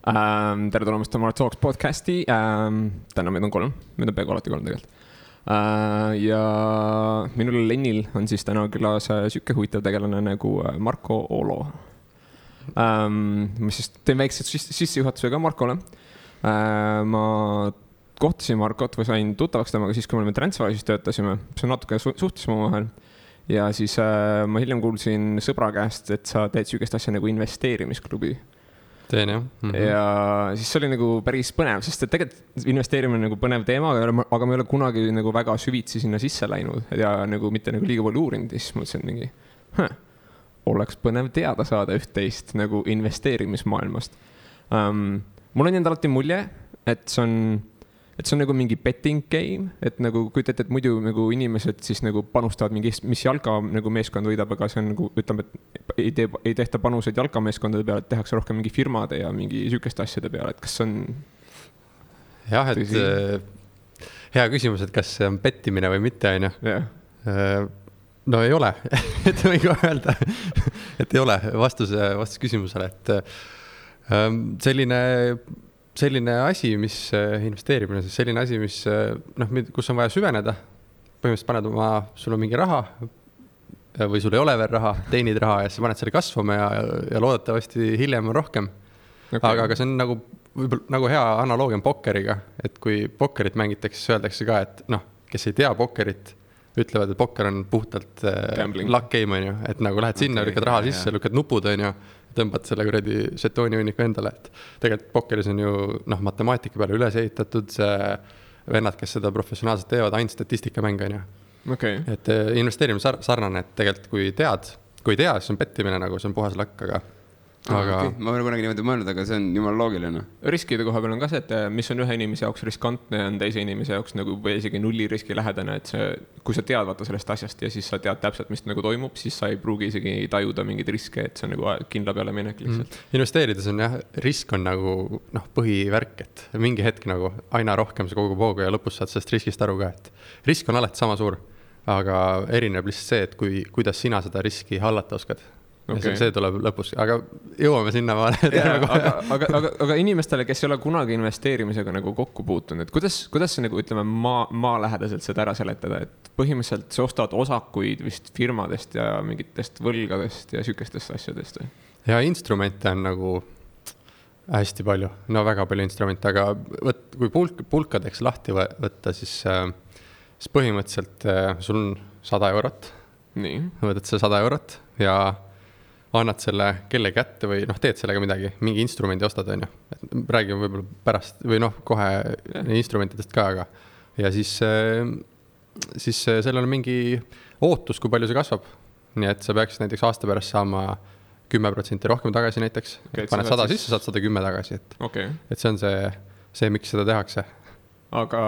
Tere tulemast Tamara Talks podcasti. Täna meid on 3, meid on peaaegu alati 3 tegelikult. Ja minul Lennil on siis täna külas sükke huvitav tegelane nagu Marko Olo. Ma siis teen väikse sissejuhatuse ka Markole. Ma kohtasin Markot või sain tuttavaks temaga siis, kui me olime Transferwise'is töötasime. See natuke suhtlesime omavahel. Ja siis ma hiljem kuulsin sõbra käest, et sa teed süükest asja nagu investeerimisklubi. Teen, jah. Ja siis see oli nagu päris põnev, sest et tegelikult investeerimine nagu põnev teema, aga me ei ole kunagi nagu väga süvitsi sinna sisse läinud ja nagu mitte nagu liiga palju uurinud. Siis mõtlesin mingi, oleks põnev teada saada üht-teist nagu investeerimismaailmast. Mul on endal alati mulje, et see on nagu mingi betting game, et nagu kujutate, et muidu nagu inimesed siis nagu panustavad mingi, mis jalga nagu meeskond võidab, aga see on nagu, ütleme, et ei tehta panuseid jalkameeskondade peale, et tehakse rohkem mingi firmade ja mingi sükeste asjade peale, et kas on... Jah, et hea küsimus, et kas see on pettimine või mitte, on ju. No ei ole, et võin ka öelda, et ei ole vastus küsimusele, et selline asi, mis investeerimine, siis selline asi, mis, kus on vaja süveneda. Põhimõtteliselt paned sul on mingi raha või sul ei ole veel raha, teenid raha ja siis paned selle kasvama ja loodetavasti hiljem on rohkem. Okay. Aga see on nagu hea analoogia pokkeriga, et kui pokkerit mängitakse, siis öeldakse ka, et kes ei tea pokkerit, ütlevad, et pokker on puhtalt luck game, on ju, et nagu lähed sinna, lükkad raha sisse, lükkad nupud, on ju, tõmbad selle kuradi žetooni hunniku endale, et tegelikult pokkeris on ju matemaatika peale üles ehitatud, see vennad, kes seda professionaalselt teevad, ainult statistikamäng, on ju. Okay. Et investeerimine sarnane, et tegelikult kui ei tea, siis on pettimine nagu, see on puhas lakk, aga... Okay. Ma olen kunagi niimoodi mõelnud, aga see on jumal loogiline. Riskide koha peal on ka see, et mis on ühe inimese jaoks riskantne, on teise inimese jaoks nagu või isegi nulli riski lähedane, et kui sa tead vaata sellest asjast ja siis sa tead täpselt, mis nagu toimub, siis sa ei pruugi isegi tajuda mingeid riske, et see on nagu kindla peale minek lihtsalt. Investeerides on jah, risk on nagu põhivärk, et mingi hetk nagu aina rohkem see kogub hoogu ja lõpus saad sellest riskist aru ka, et risk on alati sama suur, aga erineb lihtsalt see, et kuidas sina seda riski hallata oskad. Okay. See tuleb lõpus, aga jõuame sinna vaale. Aga inimestele, kes ei ole kunagi investeerimisega nagu kokku puutunud, et kuidas see nagu ütleme maa lähedaselt seda ära seletada, et põhimõtteliselt sa ostad osakuid vist firmadest ja mingitest võlgadest ja sükestest asjadest? Ja instrumente on nagu hästi palju, väga palju instrumente, aga kui pulkadeks lahti võtta, siis põhimõtteliselt sul on 100 eurot. Nii. Võtad see 100 eurot ja annad selle kelle kätte või teed sellega midagi, mingi instrumendi ostad, on ju. Räägime võib-olla pärast või kohe instrumentidest ka, aga ja siis sellel on mingi ootus, kui palju see kasvab. Nii et sa peaksid näiteks aasta pärast saama 10% rohkem tagasi näiteks. Okay, paned 100 sisse, saad 110 tagasi. Et see on see, miks seda tehakse. Aga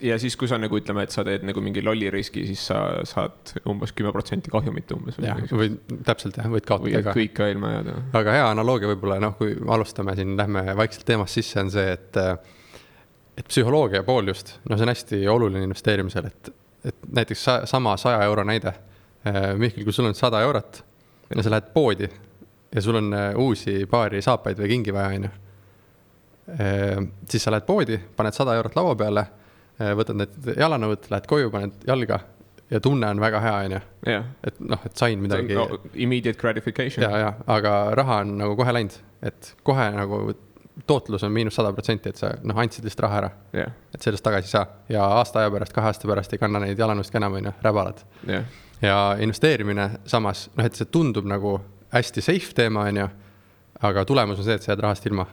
ja siis, kui sa nagu ütleme, et sa teed nagu mingi lolli riski, siis sa saad umbes 10% kahjumit umbes. Või täpselt jah, võid kaotada ka. Kõik ka ilma jääda. Aga hea analoogia võib-olla, kui alustame siin, lähme vaikselt teemast sisse, on see, et psühholoogia pool just, see on hästi oluline investeerimisel, et näiteks sama 100 euro näide. Mihkel, kui sul on 100 eurot ja sa lähed poodi ja sul on uusi paari saapaid või kingi vaja, on ju. Siis sa lähed poodi, paned 100 eurot laua peale, võtad need jalanõud, lähed koju, paned jalga ja tunne on väga hea, on ju. Et sain midagi. Immediate gratification. Ja, aga raha on nagu kohe läinud, et kohe nagu tootlus on -100%, et sa andsid lihtsalt raha ära. Et sellest tagasi saa. Ja aasta aja pärast, 2 aasta pärast ei kanna neid jalanõust ka enam, on ju, räbalad. Ja investeerimine samas, et see tundub nagu hästi safe teema, on ju, aga tulemus on see, et sa jääd rahast ilma.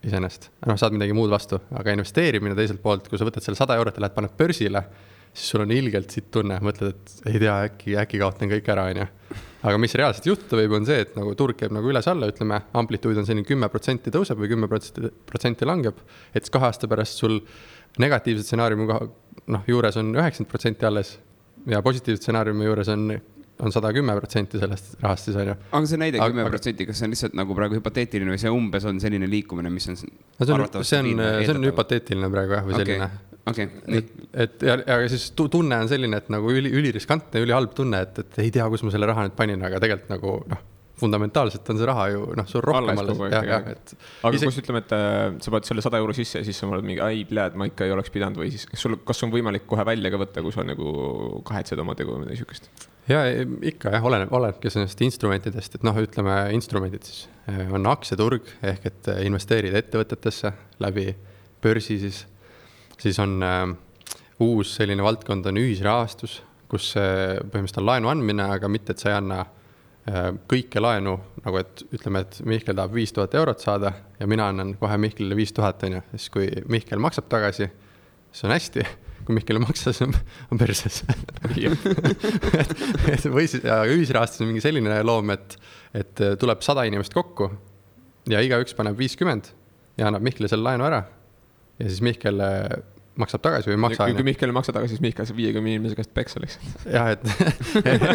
Iseenest. Saad midagi muud vastu, aga investeerimine teiselt poolt, kui sa võtad selle 100 eurot ja lähed paned börsile, siis sul on ilgelt siit tunne, mõtled, et ei tea, äkki kaotan kõik ära, on ju. Aga mis reaalselt juhtuda võib, on see, et nagu turg käib nagu üles-alla, ütleme, amplituud on selline 10% tõuseb või 10% langeb, et 2 aasta pärast sul negatiivse stsenaariumi juures on 90% alles ja positiivse stsenaariumi juures on 110% sellest rahast siis on ju. Aga see näide 10%, kas see on lihtsalt nagu praegu hüpoteetiline või see umbes on selline liikumine, mis on see on hüpoteetiline praegu jah, või selline. Ja siis tunne on selline, et nagu üliriskantne, ülihalb tunne, et ei tea, kus ma selle raha nüüd panin, aga tegelikult nagu fundamentaalselt on see raha ju, noh, sul rohkem alles. Aga kus ütleme, et sa paned selle 100 € sisse ja siis sa oled mingi, ai, pljääd, ma ikka ei oleks pidanud või siis kas on võimalik kohe välja ka võtta, kui sa nagu kahetsed oma tegu või midagi sükest? Ja ikka jah, olenebki sellest instrumentidest, et noh, ütleme instrumendid siis on aktsiaturg ehk et investeerida ettevõtetesse läbi börsi siis on uus selline valdkond on ühisrahastus, kus põhimõtteliselt on laenu andmine, aga mitte, et sa ei anna kõike laenu, nagu et ütleme, et Mihkel tahab 5000 € saada ja mina annan kohe Mihkelile 5000, on ju. Siis kui Mihkel maksab tagasi, see on hästi. Kui Mihkel maksas, on perses. Või siis ühisrahastus on mingi selline loom, et tuleb 100 inimest kokku ja igaüks paneb 50 ja annab Mihkele selle laenu ära. Ja siis Mihkel maksab tagasi või maksa. Kui Mihkel maksab tagasi, siis Mihkel saab 50 inimese käest peksa lihtsalt. Jah,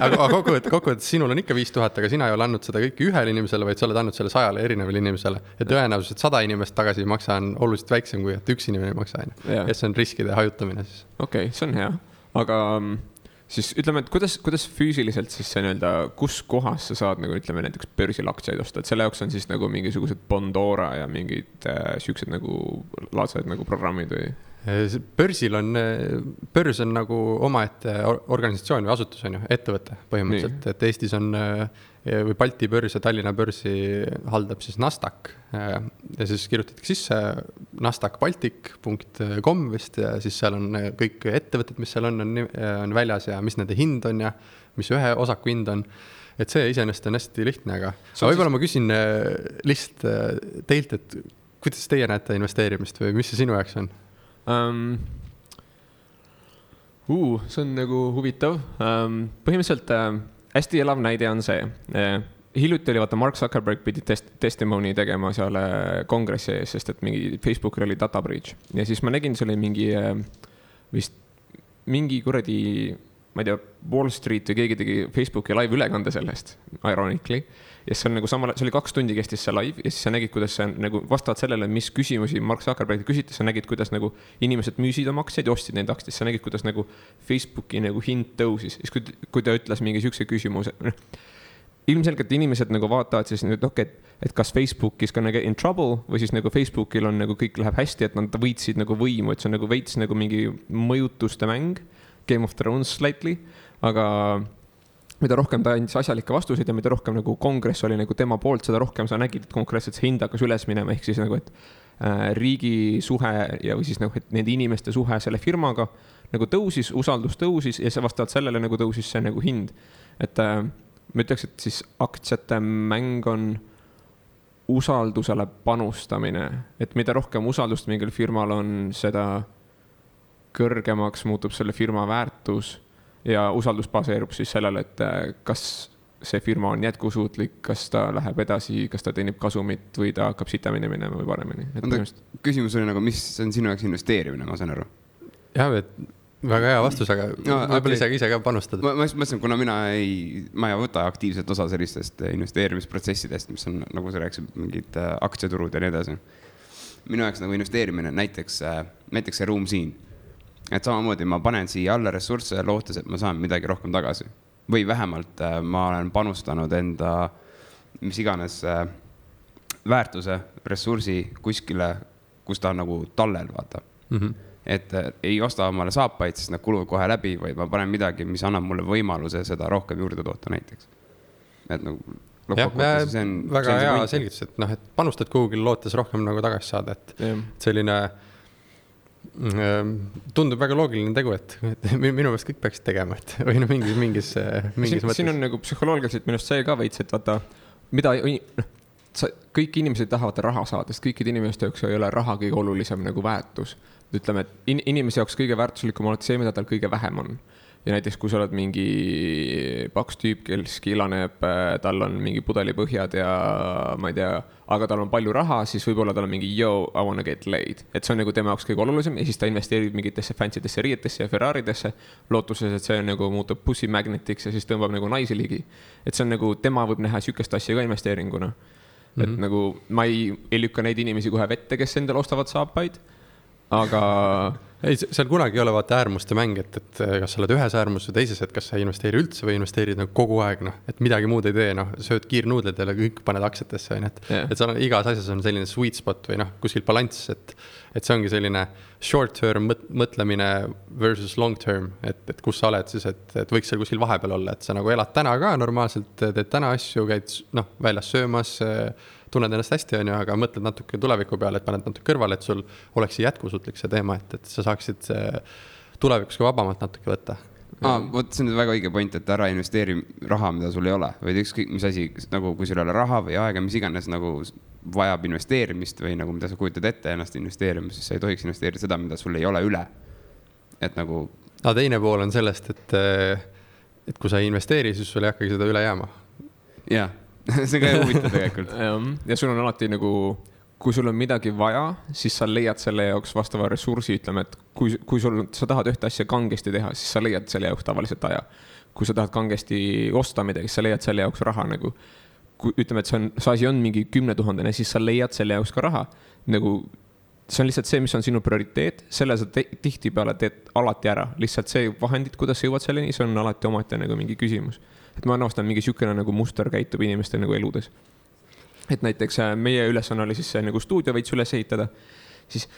aga kokkuvõttes sinul on ikka 5000, aga sina ei ole andnud seda kõike ühele inimesele, vaid sa oled andnud selle 100 erinevale inimesele. Ja tõenäoliselt 100 inimest tagasi maksa on oluliselt väiksem, kui et üks inimene maksa. Ja see on riskide hajutamine siis. Okei, see on hea. Aga siis ütleme, et kuidas füüsiliselt siis see nii-öelda, kus kohas sa saad nagu ütleme näiteks börsil aktsiaid osta, et selle jaoks on siis nagu mingisugused Bondora ja mingid süüksed nagu laadsed nagu programmid või? Börs on nagu omaette organisatsioon või asutus on ju, ettevõte põhimõtteliselt, et Eestis on või Balti börs ja Tallinna börsi haldab siis Nasdaq ja siis kirjutatakse sisse nasdaqbaltic.com vist ja siis seal on kõik ettevõtted, mis seal on väljas ja mis nende hind on ja mis ühe osaku hind on. Et see iseenesest on hästi lihtne, aga võib-olla ma küsin lihtsalt teilt, et kuidas teie näete investeerimist või mis see sinu jaoks on? See on nagu huvitav. Põhimõtteliselt hästi elav näide on see. Hiljuti oli vaata Mark Zuckerberg pidi testimony tegema seal kongressi ees, sest et mingi Facebookil oli data breach. Ja siis ma nägin, see oli mingi kuradi, ma ei tea, Wall Street või keegi tegi Facebooki live ülekande sellest, ironically. Ja see on nagu see oli 2 tundi kestis see live ja siis sa nägid, kuidas see nagu vastavalt sellele, mis küsimusi Mark Zuckerberg küsitis, sa nägid, kuidas nagu inimesed müüsid oma aktsiaid ja ostsid neid aktsiaid, sa nägid, kuidas nagu Facebooki nagu hind tõusis. Siis kui ta ütles mingi siukse küsimuse, ilmselgelt inimesed nagu vaatavad siis nüüd, et kas Facebookis ka nagu in trouble või siis nagu Facebookil on nagu kõik läheb hästi, et nad võitsid nagu võimu, et see on nagu veits nagu mingi mõjutuste mäng, Game of Thrones slightly, aga mida rohkem ta andis asjalikke vastuseid ja mida rohkem nagu kongress oli nagu tema poolt, seda rohkem sa nägid, et konkreetselt see hind hakkas üles minema, ehk siis nagu, et riigi suhe ja või siis nagu, et nende inimeste suhe selle firmaga nagu tõusis, usaldus tõusis ja see vastavalt sellele nagu tõusis see nagu hind. Et ma ütleks, et siis aktsiate mäng on usaldusele panustamine, et mida rohkem usaldust mingil firmal on, seda kõrgemaks muutub selle firma väärtus ja usaldus baseerub siis sellele, et kas see firma on jätkusuutlik, kas ta läheb edasi, kas ta teenib kasumit või ta hakkab sitamini minema või paremini. Küsimus oli nagu, mis on sinu jaoks investeerimine, ma saan aru? Jah, et väga hea vastus, aga võib-olla ise ka panustad. Ma mõtlesin, kuna ma ei võta aktiivselt osa sellistest investeerimisprotsessidest, mis on, nagu sa rääkisid, mingid aktsiaturud ja nii edasi. Minu jaoks nagu investeerimine, näiteks see ruum siin. Et samamoodi ma panen siia alla ressursse ja lootes, et ma saan midagi rohkem tagasi. Või vähemalt ma olen panustanud enda mis iganes väärtuse, ressursi kuskile, kus ta on nagu tallel, vaata. Et ei osta omale saapaid, siis nad kuluvad kohe läbi, või ma panen midagi, mis annab mulle võimaluse seda rohkem juurde toota näiteks. Et nagu see on väga hea selgitus, et noh, et panustad kuhugil lootes rohkem nagu tagasi saada, et selline tundub väga loogiline tegu, et minu meelest kõik peaksid tegema, et või mingis mõttes. Siin on nagu psühholoogiliselt minust see ka veits, et vaata, kõik inimesed tahavad raha saada, sest kõikide inimeste jaoks ei ole raha kõige olulisem nagu väärtus. Ütleme, et inimese jaoks kõige väärtuslikum on see, mida tal kõige vähem on. Ja näiteks, kui sa oled mingi paks tüüp, kes kilaneb, tal on mingi pudelipõhjad ja ma ei tea, aga tal on palju raha, siis võib-olla tal on mingi I wanna get laid. Et see on nagu tema jaoks kõige olulisem ja siis ta investeerib mingitesse fancy'desse riietesse ja Ferraridesse lootuses, et see nagu muutub pussy magnetiks ja siis tõmbab nagu naisi ligi. Et see on nagu, tema võib näha sükest asja ka investeeringuna. Et nagu ma ei lükka neid inimesi kohe vette, kes endal ostavad saapaid, aga ei, seal kunagi ei ole vaata äärmuste mäng, et kas sa oled ühes äärmus või teises, et kas sa investeeri üldse või investeerid nagu kogu aeg, noh, et midagi muud ei tee, noh, sööd kiirnuudled ja kõik paned aktsiatesse, et seal on igas asjas on selline sweet spot või noh, kuskil balanss, et see ongi selline short term mõtlemine versus long term, et kus sa oled siis, et võiks seal kuskil vahepeal olla, et sa nagu elad täna ka normaalselt, teed täna asju, käid noh, väljas söömas, tunned ennast hästi, on ju, aga mõtled natuke tuleviku peale, et paned natuke kõrvale, et sul oleks jätkusuutlik see teema, et sa saaksid tulevikus ka vabamalt natuke võtta. Vot see on väga õige point, et ära investeeri raha, mida sul ei ole, või ükskõik mis asi, nagu kui sul ei ole raha või aega, mis iganes nagu vajab investeerimist või nagu mida sa kujutad ette ennast investeerima, siis sa ei tohiks investeerida seda, mida sul ei ole üle. Et nagu... teine pool on sellest, et kui sa ei investeeri, siis sul ei hakkagi seda üle jääma. Jah, see on ka huvitav tegelikult. Ja sul on alati nagu, kui sul on midagi vaja, siis sa leiad selle jaoks vastava ressursi, ütleme, et kui sa tahad ühte asja kangesti teha, siis sa leiad selle jaoks tavaliselt aja. Kui sa tahad kangesti osta midagi, siis sa leiad selle jaoks raha nagu. Kui ütleme, et see asi on mingi 10 000, siis sa leiad selle jaoks ka raha. Nagu, see on lihtsalt see, mis on sinu prioriteet, selle sa tihti peale teed alati ära. Lihtsalt see vahendid, kuidas sa jõuad selleni, see on alati omati nagu mingi küsimus. Et ma arvastan, mingi sükene nagu muster käitub inimeste nagu eludes. Et näiteks meie ülesanne oli siis nagu stuudio veits üles ehitada, siis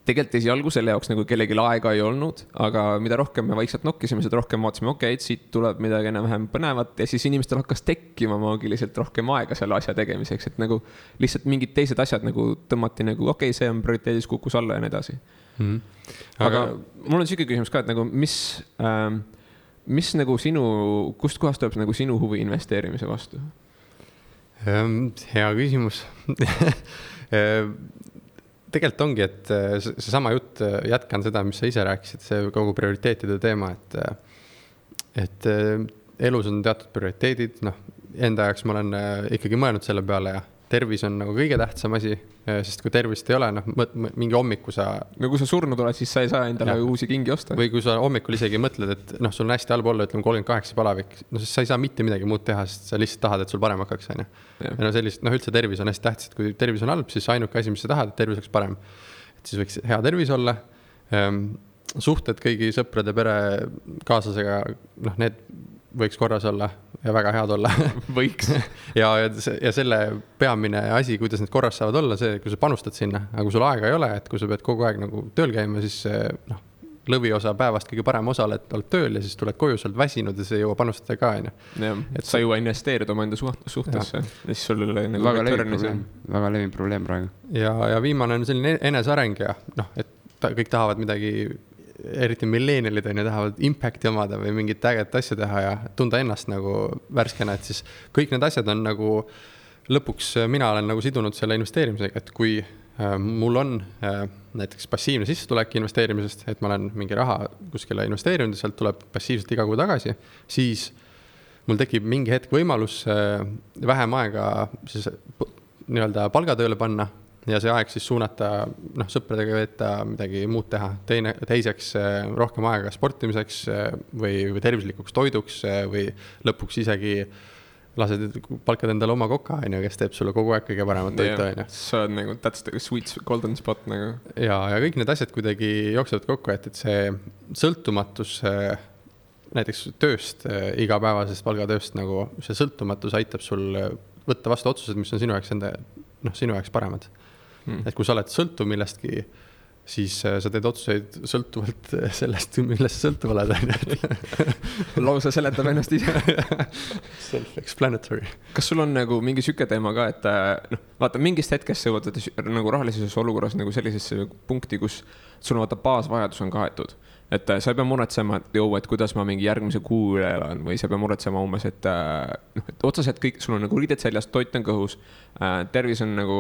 tegelikult esialgu selle jaoks nagu kellegi aega ei olnud, aga mida rohkem me vaikselt nokkisime, seda rohkem vaatasime, okei, siit tuleb midagi enam-vähem põnevat ja siis inimestel hakkas tekkima maagiliselt rohkem aega selle asja tegemiseks, et nagu lihtsalt mingid teised asjad nagu tõmmati nagu, okei, see on prioriteedis kukkus alla ja nii edasi. Aga mul on siuke küsimus ka, et nagu mis nagu kust kohast tuleb nagu sinu huvi investeerimise vastu? Hea küsimus. Tegelikult ongi, et see sama jutt, jätkan seda, mis sa ise rääkisid, see kogu prioriteetide teema, et elus on teatud prioriteedid, noh, enda jaoks ma olen ikkagi mõelnud selle peale ja tervis on nagu kõige tähtsam asi, sest kui tervist ei ole, noh, mingi hommiku sa... No kui sa surnud oled, siis sa ei saa endale uusi kingi osta. Või kui sa hommikul isegi mõtled, et noh, sul on hästi halb olla, ütleme 38 palavik, no siis sa ei saa mitte midagi muud teha, sest sa lihtsalt tahad, et sul parem hakkaks, on ju. Ja no sellist, noh, üldse tervis on hästi tähtis, et kui tervis on halb, siis ainuke asi, mis sa tahad, et tervis oleks parem. Et siis võiks hea tervis olla. Suhted kõigi sõprade, pere, kaaslasega, noh, need võiks korras olla ja väga head olla. Võiks. ja selle peamine asi, kuidas need korras saavad olla, see, kui sa panustad sinna, aga kui sul aega ei ole, et kui sa pead kogu aeg nagu tööl käima, siis noh, lõviosa päevast kõige parem osa oled tööl ja siis tuled koju, sa oled väsinud ja sa ei jõua panustada ka, on ju. Et sa jõua investeerida oma enda suhtesse. Ja siis sul nagu väga levin probleem praegu. Ja viimane on selline eneseareng ja noh, et kõik tahavad midagi, eriti millennialid on ja tahavad impacti omada või mingit äget asja teha ja tunda ennast nagu värskena, et siis kõik need asjad on nagu lõpuks mina olen nagu sidunud selle investeerimisega, et kui mul on näiteks passiivne sissetulek investeerimisest, et ma olen mingi raha kuskile investeerinud ja sealt tuleb passiivselt iga kuu tagasi, siis mul tekib mingi hetk võimalus vähem aega siis nii-öelda palgatööle panna ja see aeg siis suunata, noh, sõpradega veeta, midagi muud teha. Teiseks rohkem aega sportimiseks või tervislikuks toiduks või lõpuks isegi lased palkad endale oma koka, kes teeb sulle kogu aeg kõige paremat toitu. Sa oled nagu, that's the sweet golden spot nagu. Ja kõik need asjad kuidagi jooksevad kokku, et see sõltumatus näiteks tööst, igapäevasest palgatööst, nagu see sõltumatus aitab sul võtta vastu otsused, mis on sinu jaoks paremad. Et kui sa oled sõltuv millestki, siis sa teed otsuseid sõltuvalt sellest, millest sa sõltuv oled. Lausa seletab ennast ise. Self-explanatory. Kas sul on nagu mingi süke teema ka, et vaata, mingist hetkest sa jõuad nagu rahalises olukorras nagu sellisesse punkti, kus sul vaata baasvajadus on kaetud. Et sa ei pea muretsema, et kuidas ma mingi järgmise kuu üle elan või sa ei pea muretsema umbes, et otseselt kõik, sul on nagu riided seljas, toit on kõhus, tervis on nagu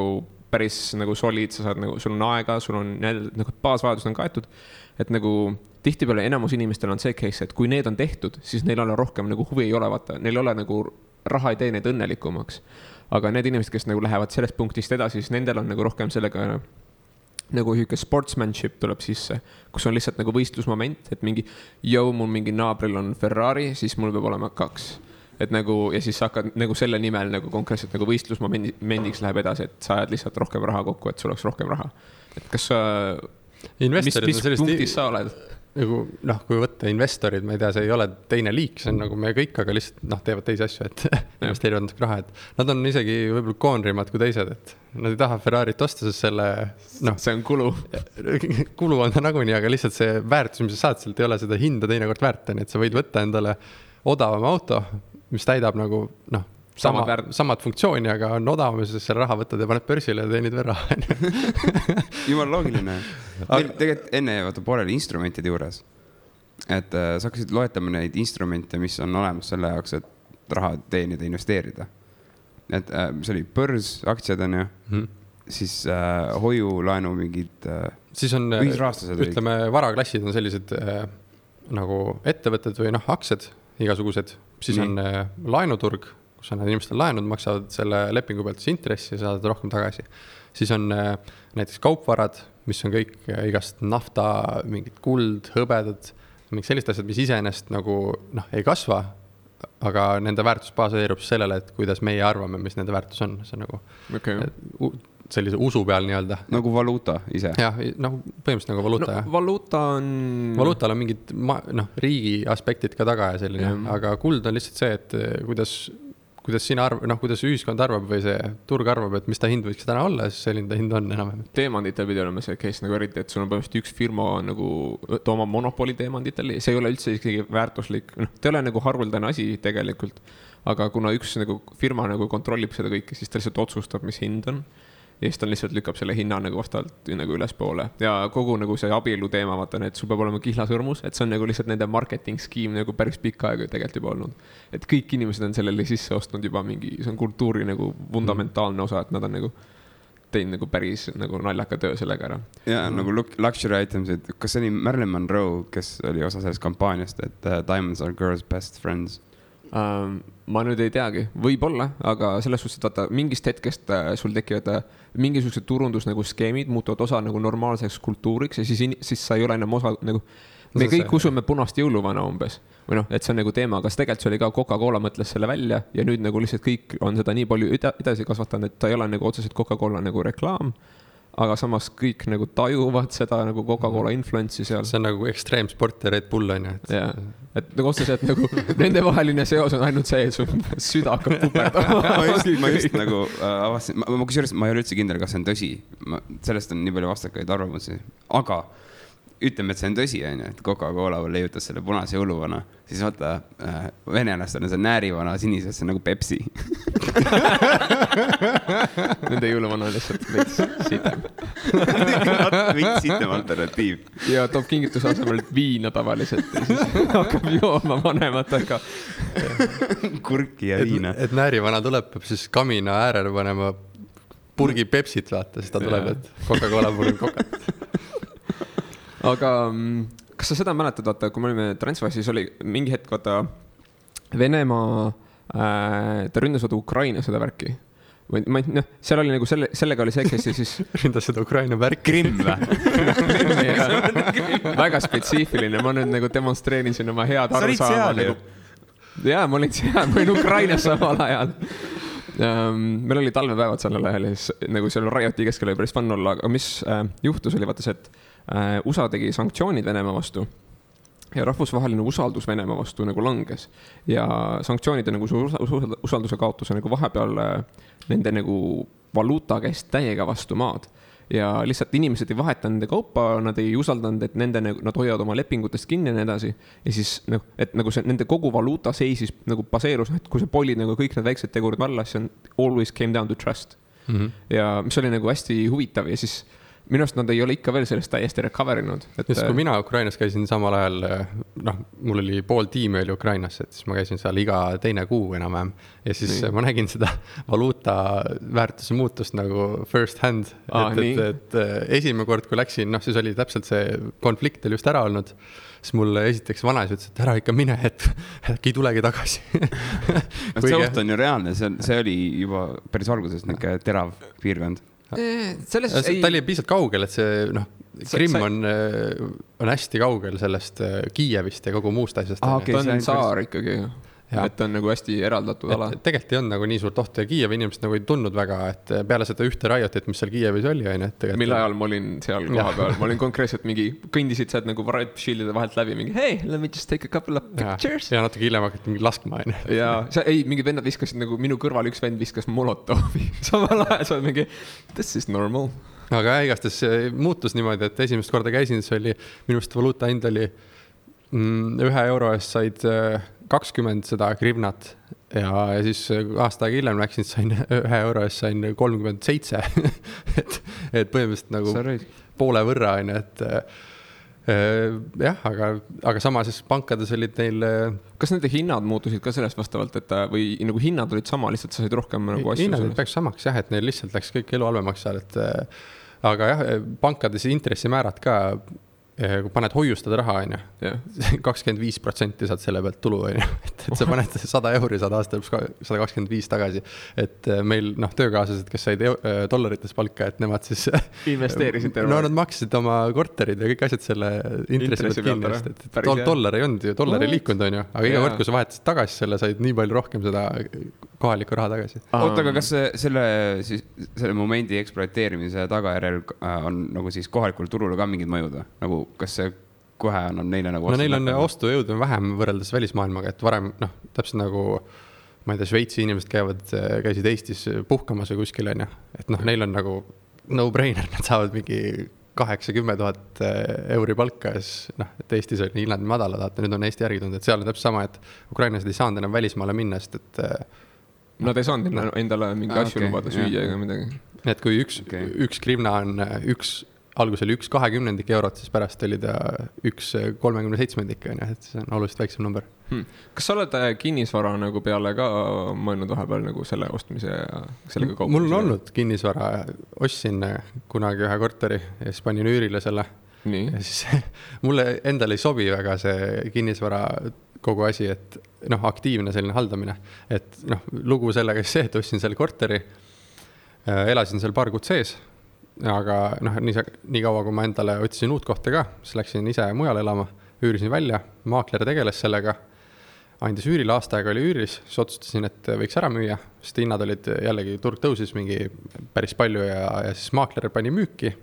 päris nagu solid, sa saad nagu, sul on aega, sul on nagu baasvajadused on kaetud, et nagu tihtipeale enamus inimestel on see case, et kui need on tehtud, siis neil ole rohkem nagu huvi ei ole, vaata, neil ole nagu raha ei tee neid õnnelikumaks. Aga need inimesed, kes nagu lähevad sellest punktist edasi, siis nendel on nagu rohkem sellega nagu hüke sportsmanship tuleb sisse, kus on lihtsalt nagu võistlusmoment, et mingi, mul mingi naabril on Ferrari, siis mul peab olema 2. Et nagu, ja siis hakkad nagu selle nimel nagu konkreetselt nagu võistlusmomendiks läheb edasi, et sa ajad lihtsalt rohkem raha kokku, et sul oleks rohkem raha. Et kas sa mis punktis sa oled? Nagu kui võtta investorid, ma ei tea, see ei ole teine liik, see on nagu me kõik, aga lihtsalt teevad teisi asju, et investeerivad natuke raha, et nad on isegi võib-olla koonrimad kui teised, et nad ei taha Ferrarit osta, sest selle see on kulu. Kulu on ta nagunii, aga lihtsalt see väärtus, mis sa saad, sealt ei ole seda hinda teinekord väärt, et sa võid võtta endale odavama auto, mis täidab nagu samad funktsiooni, aga on odavam, sest selle raha võtad ja paned börsile ja teenid veel raha. Jumal loogiline. Meil tegelikult enne pooleli instrumentide juures, et sa hakkasid loetama neid instrumente, mis on olemas selle jaoks, et raha teenida, investeerida. Et see oli börs, aktsiad on ju, siis hoiu, laenu mingid siis on, ühisrahastused. Ütleme, varaklassid on sellised nagu ettevõtted või aktsiad igasugused, siis on laenuturg, kus on need inimestel laenud, maksavad selle lepingu pealt intressi ja saavad rohkem tagasi. Siis on näiteks kaupvarad, mis on kõik igast nafta, mingid kuld, hõbedad, mingid sellised asjad, mis iseenesest nagu ei kasva, aga nende väärtus baseerub sellele, et kuidas meie arvame, mis nende väärtus on. See on nagu sellise usu peal nii-öelda. Nagu valuuta ise. Jah, põhimõtteliselt nagu valuuta. Valuutal on mingid riigi aspektid ka taga ja selline, aga kuld on lihtsalt see, et kuidas sina kuidas ühiskond arvab või see turg arvab, et mis ta hind võiks täna olla, siis selline ta hind on enam. Teemanditel pidi olema see case nagu eriti, et sul on põhimõtteliselt üks firma nagu oma monopoli teemanditel, see ei ole üldse isegi väärtuslik, ta ei ole nagu haruldane asi tegelikult, aga kuna üks nagu firma nagu kontrollib seda kõike, siis ta lihtsalt otsustab, mis hind on. Ja siis ta lihtsalt lükkab selle hinna nagu vastavalt nagu ülespoole. Ja kogu nagu see abielu teema, vaatan, et sul peab olema kihlasõrmus, et see on nagu lihtsalt nende marketing skeem nagu päris pikka aega tegelikult juba olnud. Et kõik inimesed on sellele sisse ostnud juba mingi, see on kultuuri nagu fundamentaalne osa, et nad on nagu teinud nagu päris nagu naljaka töö sellega ära. Ja nagu luxury items, et kas see oli Marilyn Monroe, kes oli osa sellest kampaaniast, et diamonds are girls' best friends? Ma nüüd ei teagi, võib-olla, aga selles suhtes, et vaata, mingist hetkest sul tekivad mingisugused turundus nagu skeemid, muutuvad osa nagu normaalseks kultuuriks ja siis sa ei ole enam osa nagu, me kõik usume punast jõuluvana umbes või et see on nagu teema, aga tegelikult see oli ka Coca-Cola mõtles selle välja ja nüüd nagu lihtsalt kõik on seda nii palju edasi kasvatanud, et ta ei ole nagu otseselt Coca-Cola nagu reklaam, aga samas kõik nagu tajuvad seda nagu Coca-Cola influence'i seal. See on nagu ekstreemsport ja Red Bull on ju. Et nagu otseselt nagu nende vaheline seos on ainult see, et su süda hakkab puperdama. ma just nagu avastasin, ma ei ole üldse kindel, kas see on tõsi. Sellest on nii palju vastakaid arvamusi. Aga ütleme, et see on tõsi, et Coca-Cola leiutas selle punase jõuluvana, siis vaata, venelastel on see näärivana sinises, see on nagu Pepsi. Nende jõuluvana on lihtsalt veits sitem. Veits sitem alternatiiv. Ja toob kingituse asemel viina tavaliselt ja siis hakkab jooma vanematega. Kurki ja viina. Et näärivana tuleb, peab siis kamina äärele panema purgi Pepsit vaata, siis ta tuleb, et Coca-Cola purgi Coca. Aga kas sa seda mäletad, vaata, kui me olime Transfassis, oli mingi hetk, vaata, Venemaa, ta ründas Ukraina seda värki. Seal oli nagu sellega oli see, kes siis ründas seda Ukraina värki. Krimm või? Väga spetsiifiline, ma nüüd nagu demonstreerin siin oma head arusaama. Jaa, ma olin Ukrainas samal ajal. Meil oli talvepäevad sellel ajal ja siis nagu seal Rioti keskel oli päris fun olla, aga mis juhtus oli vaata see, et USA tegi sanktsioonid Venemaa vastu ja rahvusvaheline usaldus Venemaa vastu nagu langes ja sanktsioonide nagu usalduse kaotuse nagu vahepeal nende nagu valuuta käest täiega vastu maad ja lihtsalt inimesed ei vaheta nende kaupa, nad ei usaldanud, et nad hoiavad oma lepingutest kinni ja nii edasi ja siis et nagu see nende kogu valuuta seisis nagu baseerus, et kui sa polid nagu kõik need väiksed tegurid vallas, see on always came down to trust ja mis oli nagu hästi huvitav ja siis minu arust nad ei ole ikka veel sellest täiesti recoverinud. Just kui mina Ukrainas käisin samal ajal, mul oli pool tiimi oli Ukrainas, et siis ma käisin seal iga teine kuu enam-vähem ja siis ma nägin seda valuuta väärtuse muutust nagu first hand, et esimene kord, kui läksin, siis oli täpselt see konflikt oli just ära olnud, siis mulle esiteks vanas ütles, et ära ikka mine, et äkki tulegi tagasi. See oht on ju reaalne, see oli juba päris alguses niisugune terav piirkond. Ta oli piisalt kaugel, et see Krimm on hästi kaugel sellest Kiievist ja kogu muust asjast. Ta on saar ikkagi. et on nagu hästi eraldatud ala. Tegelikult ei olnud nagu nii suurt ohtu ja Kiievi inimesed nagu ei tundnud väga, et peale seda ühte Riotit, mis seal Kiievis oli, on ju. Mille ajal ma olin seal koha peal, ma olin konkreetselt mingi, kõndisid sealt nagu Riot Shieldide vahelt läbi mingi, hey, let me just take a couple of pictures. Ja natuke hiljem hakati mingi laskma, on ju. Ja ei, mingid vennad viskasid nagu minu kõrval, üks vend viskas Molotovi. Samal ajal sa oled mingi, this is normal. Aga igastes muutus niimoodi, et esimest korda käisin, see oli, minust valuuta hind oli 1 euro eest said 20 seda grivnat ja siis aasta aega hiljem läksin, sain 1 euro eest sain 37. et põhimõtteliselt nagu poole võrra, on, et jah, aga sama siis pankades olid neil. Kas nende hinnad muutusid ka sellest vastavalt, et või nagu hinnad olid sama, lihtsalt sa said rohkem nagu asju? Hinnad olid päris samaks jah, et neil lihtsalt läks kõik elu halvemaks seal, et aga jah, pankades intressimäärad ka, kui paned hoiustada raha, on ju, 25% saad selle pealt tulu, on ju, et sa paned 100 euri, saad aasta 125 tagasi, et meil töökaaslased, kes said dollarites palka, et nemad siis investeerisid no nad maksid oma korterid ja kõik asjad selle intressi pealt kinni, et dollar ei olnud ju, dollar ei liikunud, on ju, aga iga kord, kui sa vahetasid tagasi selle, said nii palju rohkem seda kohalikku raha tagasi. Oota, aga kas selle momendi eksploateerimise tagajärjel on nagu siis kohalikul turul ka mingid mõjud, nagu kas see kohe annab neile nagu no neil on ostujõud vähem võrreldes välismaailmaga, et varem, täpselt nagu ma ei tea, Šveitsi inimesed käisid Eestis puhkamas või kuskil, on ju, et neil on nagu no-brainer, nad saavad mingi 8-10 000 euri palka, et Eestis on hinnad madalad, nüüd on Eesti järgi tulnud, et seal on täpselt sama, et ukrainlased ei saanud enam välismaale minna, sest et nad ei saanud endale mingi asju lubada süüa ega midagi. Et kui üks grivna on algus oli 1/20 eurot, siis pärast oli ta 1/37, et see on oluliselt väiksem number. Kas sa oled kinnisvara nagu peale ka mõelnud vahepeal nagu selle ostmise ja sellega kaupmise? Mul on olnud kinnisvara, ostsin kunagi ühe korteri ja siis panin üürile selle. Nii. Ja siis mulle endale ei sobi väga see kinnisvara kogu asi, et aktiivne selline haldamine. Et lugu sellega see, et ostsin selle korteri, elasin seal paar kuud sees, aga nii kaua, kui ma endale otsisin uut kohta ka, siis läksin ise mujale elama, üürisin välja, maakler tegeles sellega, andis üürile, aasta aega oli üüris, siis otsustasin, et võiks ära müüa, sest hinnad olid jällegi, turg tõusis mingi päris palju ja siis maakler pani müüki,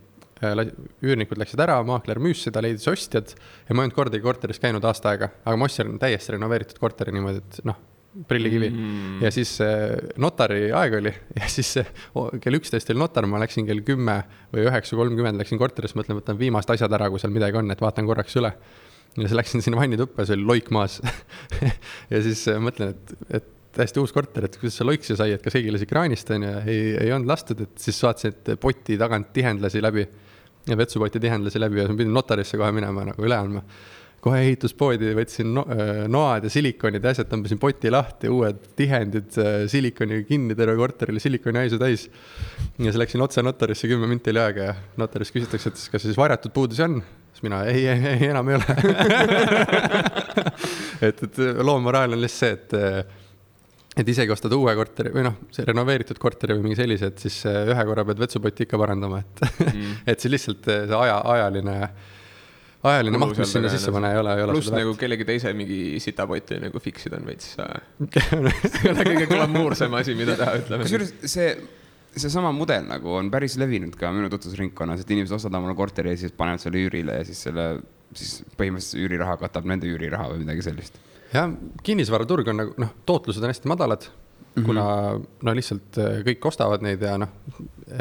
üürnikud läksid ära, maakler müüs seda, leidis ostjad ja ma ei olnud kordagi korteris käinud aasta aega, aga ma ostsin täiesti renoveeritud korteri niimoodi, et prillikivi. Ja siis notari aeg oli ja siis kell 11 oli notar, ma läksin kell 10 või 9:30 läksin korteris, mõtlen, võtan viimast asjad ära, kui seal midagi on, et vaatan korraks üle. Ja siis läksin sinna vannituppa, see oli loik maas. Ja siis mõtlen, et täiesti uus korter, et kuidas see loiksi sai, et kas keegi lasi kraanist on ja ei olnud lastud, et siis vaatasin, et poti tagant tihendlasi läbi ja vetsupoti tihendlasi läbi ja pidin notarisse kohe minema nagu üle andma. Kohe ehituspoodi võtsin noad ja silikonid ja asjad, tõmbasin poti lahti, uued tihendid, silikoni kinni terve korterile, silikoni haisu täis. Ja siis läksin otse notarisse 10 minti oli aega ja notaris küsitakse, et kas siis varjatud puudusi on? Siis mina, ei, enam ei ole. et loomaraal on lihtsalt see, et isegi ostad uue korteri või see renoveeritud korteri või mingi sellise, et siis ühe korra pead vetsupoti ikka parandama, et siis lihtsalt see ajaline maht, mis sinna sisse pane, ei ole pluss nagu kellegi teise mingi sitapoti nagu fiksid on veits. See on kõige glamoursem asi, mida teha, ütleme. Kusjuures see sama mudel nagu on päris levinud ka minu tutvusringkonnas, et inimesed ostavad omale korteri ja siis panevad selle üürile ja siis põhimõtteliselt üüriraha katab nende üüriraha või midagi sellist. Ja kinnisvaraturg on nagu, tootlused on hästi madalad, kuna lihtsalt kõik ostavad neid ja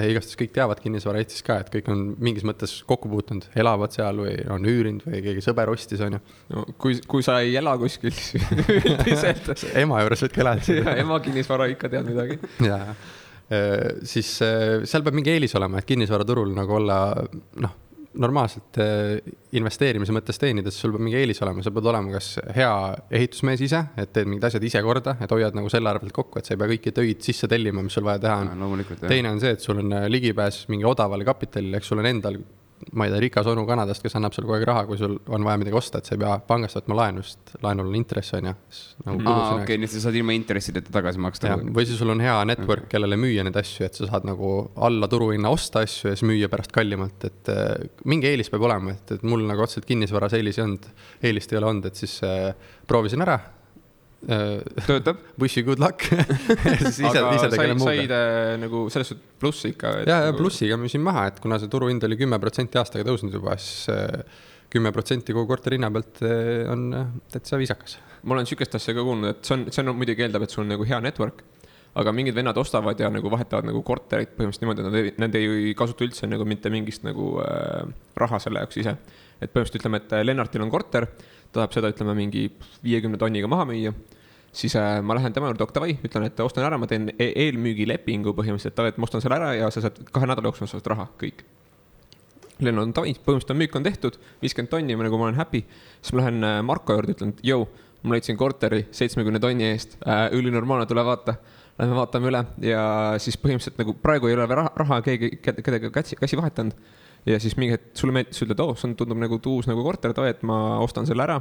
igastes kõik teavad kinnisvara Eestis ka, et kõik on mingis mõttes kokku puutunud, elavad seal või on üürinud või keegi sõber ostis, on ju. No, kui sa ei ela kuskil, siis ema juures võtke elada. Ja ema kinnisvara ikka tead midagi. Ja, siis seal peab mingi eelis olema, et kinnisvaraturul nagu olla, normaalselt investeerimise mõttes teenides sul peab mingi eelis olema, sa pead olema kas hea ehitusmees ise, et teed mingid asjad ise korda, et hoiad nagu selle arvelt kokku, et sa ei pea kõiki töid sisse tellima, mis sul vaja teha on. Teine on see, et sul on ligipääs mingi odavale kapitalile, eks sul on endal, ma ei tea, rikas onu Kanadast, kes annab sul kogu aeg raha, kui sul on vaja midagi osta, et sa ei pea pangast võtma laenu, sest laenul on intress, on ju. Okei, nii et sa saad ilma intressideta tagasi maksta. Või siis sul on hea network, kellele müüa need asju, et sa saad nagu alla turuhinna osta asju ja siis müüa pärast kallimalt, et mingi eelis peab olema, et mul nagu otseselt kinnisvaras eelist ei ole olnud, et siis proovisin ära töötab. Wish you good luck. aga said nagu selles suhtes plussi ikka? Ja plussiga müüsin maha, et kuna see turuhind oli 10% aastaga tõusnud juba, siis 10% kogu korteri hinna pealt on täitsa viisakas. Ma olen sükest asja ka kuulnud, et see on muidugi eeldab, et sul on nagu hea network, aga mingid vennad ostavad ja nagu vahetavad nagu korterit põhimõtteliselt niimoodi, et nad ei kasuta üldse nagu mitte mingist nagu raha selle jaoks ise. Et põhimõtteliselt ütleme, et Lennartil on korter, ta tahab seda, ütleme, mingi 50 tonniga maha müüa, siis ma lähen tema juurde Octavai, ütlen, et ostan ära, ma teen eelmüügilepingu põhimõtteliselt, et ma ostan selle ära ja sa saad 2 nädala jooksul saad raha, kõik. Lennart on tavai, põhimõtteliselt müük on tehtud, 50 tonni, nagu ma olen happy, siis ma lähen Marko juurde, ütlen, et jõu, ma leidsin korteri 70 tonni eest, ülinormaalne, tule vaata, lähme vaatame üle ja siis põhimõtteliselt nagu praegu ei ole raha kedagi käsi vahetanud. Ja siis mingi hetk sulle meeldis, ütled, see tundub nagu uus nagu korter, et ma ostan selle ära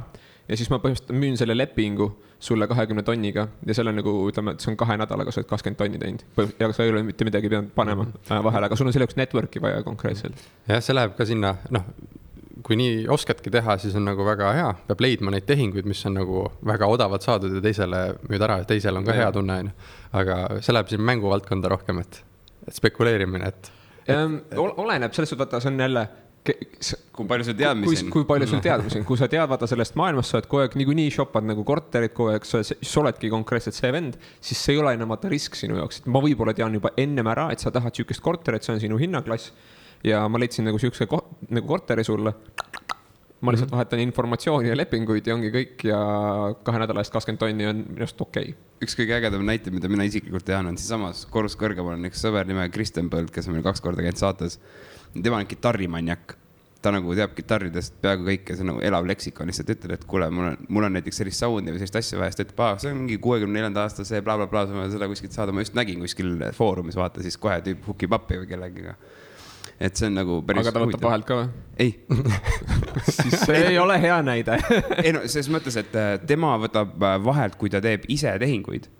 ja siis ma põhimõtteliselt müün selle lepingu sulle 20 tonniga ja selle nagu ütleme, et see on 2 nädalaga, sa oled 20 tonni teinud ja sa ei ole mitte midagi pidanud panema vahele, aga sul on selle jaoks network'i vaja konkreetselt. Jah, see läheb ka sinna, kui nii oskadki teha, siis on nagu väga hea, peab leidma neid tehinguid, mis on nagu väga odavad saadud ja teisele müüd ära, teisel on ka hea tunne, aga see läheb siin mänguvaldkonda rohkem, et spekuleerimine, et oleneb selles suhtes, vaata, see on jälle kui palju sul teadmisi on. Kui palju sul teadmisi on, kui sa tead vaata sellest maailmast, sa oled kogu aeg niikuinii shopad nagu korterid kogu aeg, sa oledki konkreetselt see vend, siis see ei ole enam vaata risk sinu jaoks, et ma võib-olla tean juba ennem ära, et sa tahad sükest korterit, see on sinu hinnaklass ja ma leidsin nagu sükse nagu korteri sulle. Ma lihtsalt vahetan informatsiooni ja lepinguid ja ongi kõik ja 2 nädala eest 20 tonni on minust okei. Üks kõige ägedam näite, mida mina isiklikult tean, on siis samas korrus kõrgemal on üks sõber nimega Kristen Põld, kes on meil 2 korda käinud saates. Tema on kitarrimanjak. Ta nagu teab kitarridest peaaegu kõike, see nagu elav leksikon, lihtsalt ütled, et kuule, mul on näiteks sellist soundi või sellist asja vaja, et see on mingi 64. aasta see blablabla, seda kuskilt saada, ma just nägin kuskil foorumis, vaata siis kohe tüüp hukib appi või kellegiga. Et see on nagu päris aga ta võtab vahelt ka või? Ei. Siis see ei ole hea näide. Ei no, selles mõttes, et tema võtab vahelt, kui ta teeb ise tehinguid,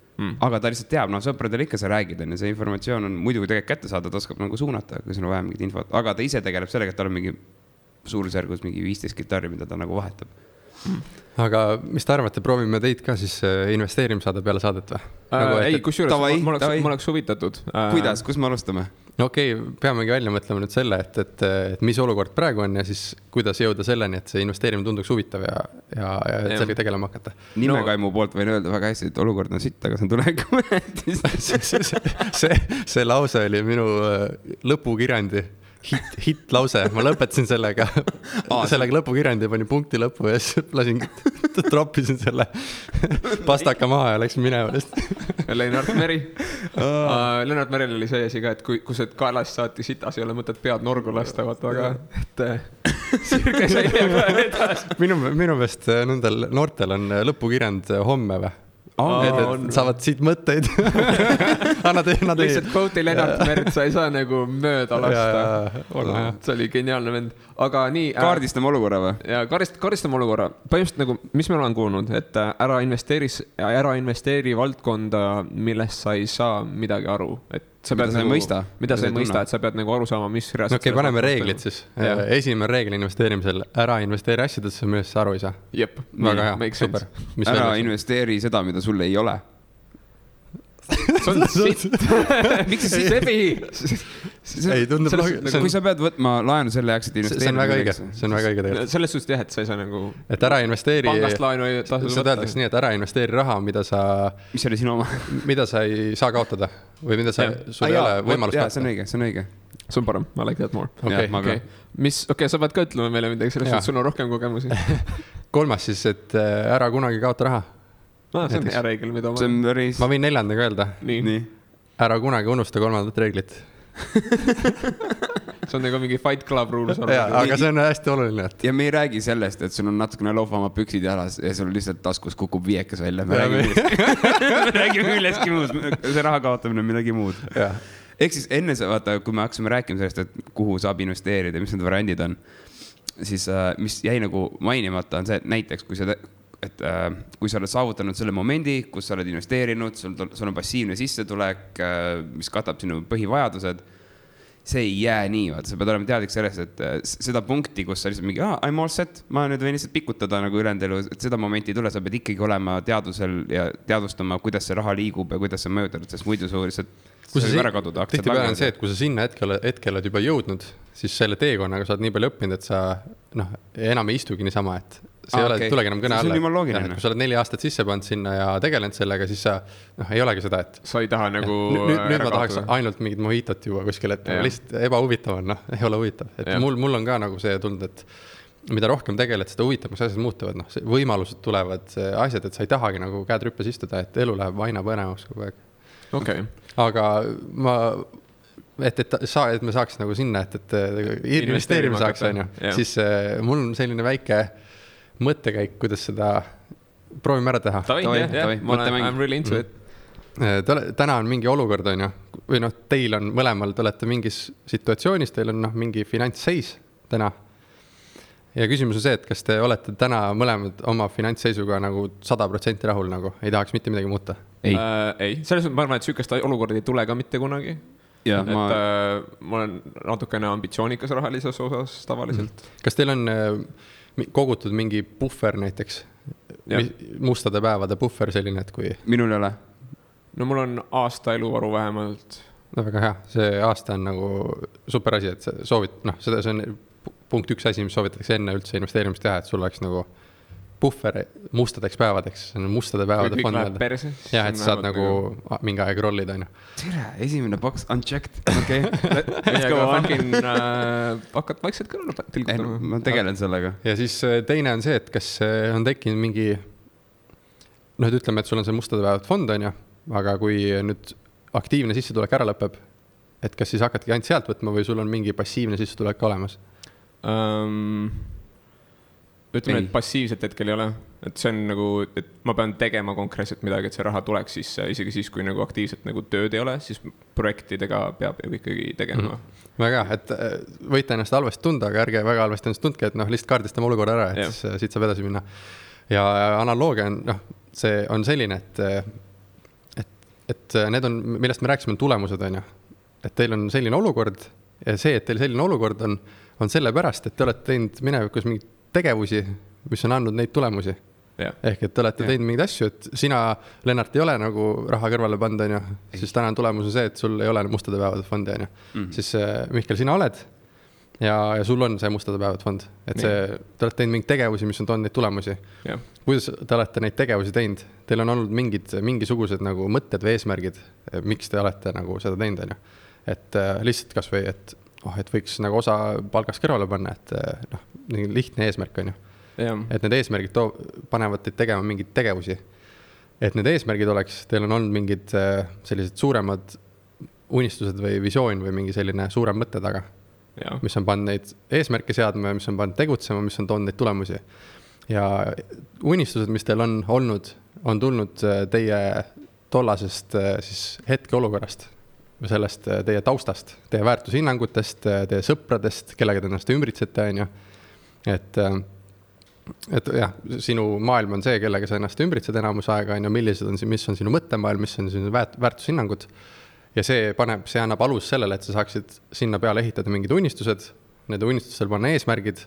aga ta lihtsalt teab, sõpradele ikka sa räägid, ja see informatsioon on muidugi tegelikult kätte saada, ta oskab nagu suunata, kui sul on vaja mingit infot, aga ta ise tegeleb sellega, et tal on mingi suurusjärgus mingi 15 kitarri, mida ta nagu vahetab. Aga mis te arvate, proovime teid ka siis investeerimissaade peale saadet või? Ei, kusjuures ma oleks huvitatud. Kuidas, kus me alustame? No okei, peamegi välja mõtlema nüüd selle, et mis olukord praegu on ja siis kuidas jõuda selleni, et see investeerimine tunduks huvitav ja sellega tegelema hakata. Nimekaimu poolt võin öelda väga hästi, et olukord on sitt, aga see on tuleviku see lause oli minu lõpukirjandi hit lause, ma lõpetasin sellega lõpukirjandi ja panin punkti lõppu ja siis troppisin selle pastaka maha ja läksin minema. Lennart Meri. Lennart Meril oli see asi ka, et kui see kaelast saati sitas, ei ole mõtet pead norgu lasta, aga sirge sai ka edasi. Minu meelest nendel noortel on lõpukirjand homme või? Et saavad siit mõtteid. Lihtsalt quote'i Lennart Mert, sa ei saa nagu mööda lasta. See oli geniaalne vend. Aga nii... Kaardistame olukorra või? Ja kaardistame olukorra. Põhimõtteliselt nagu, mis me olen kuulnud, et ära investeeri valdkonda, millest sa ei saa midagi aru. Et sa pead mida sa ei mõista, et sa pead nagu aru saama, mis reaalselt... Okei, paneme reeglid siis. Esimene reegel investeerimisel, ära investeeri asjadesse, millest sa aru ei saa. Jep. Väga hea, super. Ära investeeri seda, mida sulle ei ole. See on sitt. Miks see sebi? Ei, tundub kui sa pead võtma laenu selle jaoks, et investeerida. See on väga õige. See on väga õige tegelikult. Selles suhtes jah, et sa ei saa nagu... Et ära investeeri... Pangast laenu ei tasu võtta. Sa teadaks nii, et ära investeeri raha, mida sa... Mis oli sinu oma? Mida sa ei saa kaotada. Või mida sul ei ole võimalust kaotada. See on õige. See on parem. I like that more. Okay. Sa pead ka ütlema meile midagi, selles suhtes sul on rohkem kogemusi. 3. siis, et ära kunagi kaota raha. See on hea reegel, mida ma võin 4. öelda. Nii. Ära kunagi unusta 3. reeglit. See on nagu mingi Fight Club rules. Aga see on hästi oluline. Ja me ei räägi sellest, et sul on natukene loofama püksid jalas ja sul lihtsalt taskus kukub viiekas välja. Me räägime millestki muud. See raha kaotamine on midagi muud. Ehk siis enne vaata, kui me hakkasime rääkima sellest, et kuhu saab investeerida, mis need variandid on, siis mis jäi nagu mainimata on see, et näiteks kui sa oled saavutanud selle momendi, kus sa oled investeerinud, sul on passiivne sissetulek, mis katab sinu põhivajadused see ei jää nii, vaata, sa pead olema teadlik sellest, et seda punkti, kus sa lihtsalt mingi, I'm all set, ma nüüd võin lihtsalt pikutada nagu ülejäänud elu, et seda momenti ei tule, sa pead ikkagi olema teadusel ja teadvustama, kuidas see raha liigub ja kuidas see mõjutab, sest muidu su lihtsalt võib ära kaduda. Tihtipeale on see, et kui sa sinna hetkel oled juba jõudnud, siis selle teekonnaga sa oled nii palju õppinud, et sa enam ei istugi niisama, et see ei ole, tulegi enam kõne alla. Kui sa oled 4 aastat sisse pannud sinna ja tegelenud sellega, siis sa ei olegi seda, et sa ei taha nagu nüüd ma tahaks ainult mingit mohitot juba kuskil, et lihtsalt ebahuvitav on, ei ole huvitav. Et mul on ka nagu see tund, et mida rohkem tegeled, seda huvitavaks asjad muutuvad, võimalused tulevad asjad, et sa ei tahagi nagu käed rüppes istuda, et elu läheb aina põnevaks kogu aeg. Okay. Aga et me saaks nagu sinna, et investeerima saaks, siis mul on selline väike mõttekäik, kuidas seda proovime ära teha. I'm really into it. Täna on mingi olukord, või teil on mõlemal, te olete mingis situatsioonis, teil on mingi finantsseis täna. Ja küsimus on see, et kas te olete täna mõlemad oma finantsseisuga nagu 100% rahul, nagu ei tahaks mitte midagi muuta? Ei. Selles mõttes ma arvan, et sükest olukorda ei tule ka mitte kunagi. Ja, ma olen natukene ambitsioonikas rahalises osas tavaliselt. Kas teil on kogutud mingi buffer näiteks? Mustade päevade buffer selline, et kui... Minul ei ole. No mul on aasta eluvaru vähemalt. No väga hea. See aasta on nagu super asi, et soovid, see on punkt 1 asi, mis soovitatakse enne üldse investeerimist teha, et sul oleks nagu buffer mustadeks päevadeks, see on mustade päevade fond. Kõik läheb perse. Jah, et saad nagu mingi aeg rollida. Tere, esimene box unchecked. Okay. Let's go on. Hakkad vaikselt kõrval tilgutama. Ma tegelen sellega. Ja siis teine on see, et kas on tekkinud mingi, ütleme, et sul on see mustade päevade fond, aga kui nüüd aktiivne sissetulek ära lõpeb, et kas siis hakkadki ainult sealt võtma või sul on mingi passiivne sissetulek olemas? Ütleme, et passiivset hetkel ei ole, et see on nagu, et ma pean tegema konkreetselt midagi, et see raha tuleks sisse, isegi siis, kui nagu aktiivselt nagu tööd ei ole, siis projektidega peab ju ikkagi tegema. Väga, et võite ennast halvasti tunda, aga ärge väga halvasti ennast tundke, et lihtsalt kaardistame olukorra ära, et siis siit saab edasi minna. Ja analoogia on, see on selline, et need on, millest me rääkisime, on tulemused, et teil on selline olukord ja see, et teil selline olukord on sellepärast, et te olete teinud minevikus mingeid tegevusi, mis on andnud neid tulemusi. Ehk, et te olete teinud mingeid asju, et sina, Lennart, ei ole nagu raha kõrvale panda, siis täna tulemus on see, et sul ei ole mustade päevade fondi, Siis Mihkel, sina oled ja sul on see mustade päevade fond. Et te olete teinud mingeid tegevusi, mis on toonud neid tulemusi. Kuidas te olete neid tegevusi teinud? Teil on olnud mingisugused nagu mõtted või eesmärgid, miks te olete nagu seda teinud, Et lihtsalt kas või, et võiks nagu osa palgast kõrvale panna, et lihtne eesmärk on ju. Et need eesmärgid panevad teid tegema mingeid tegevusi. Et need eesmärgid oleks, teil on olnud mingid sellised suuremad unistused või visioon või mingi selline suurem mõtte taga, mis on pannud neid eesmärke seadma, mis on pannud tegutsema, mis on toonud neid tulemusi. Ja unistused, mis teil on olnud, on tulnud teie tollasest siis hetke olukorrast, sellest teie taustast, teie väärtushinnangutest, teie sõpradest, kellega te ennast ümbritsete, Et jah, sinu maailm on see, kellega sa ennast ümbritsed enamus aega, mis on sinu mõttemaailm, mis on sinu väärtushinnangud. Ja see annab alus sellele, et sa saaksid sinna peale ehitada mingid unistused, need unistustel panna eesmärgid,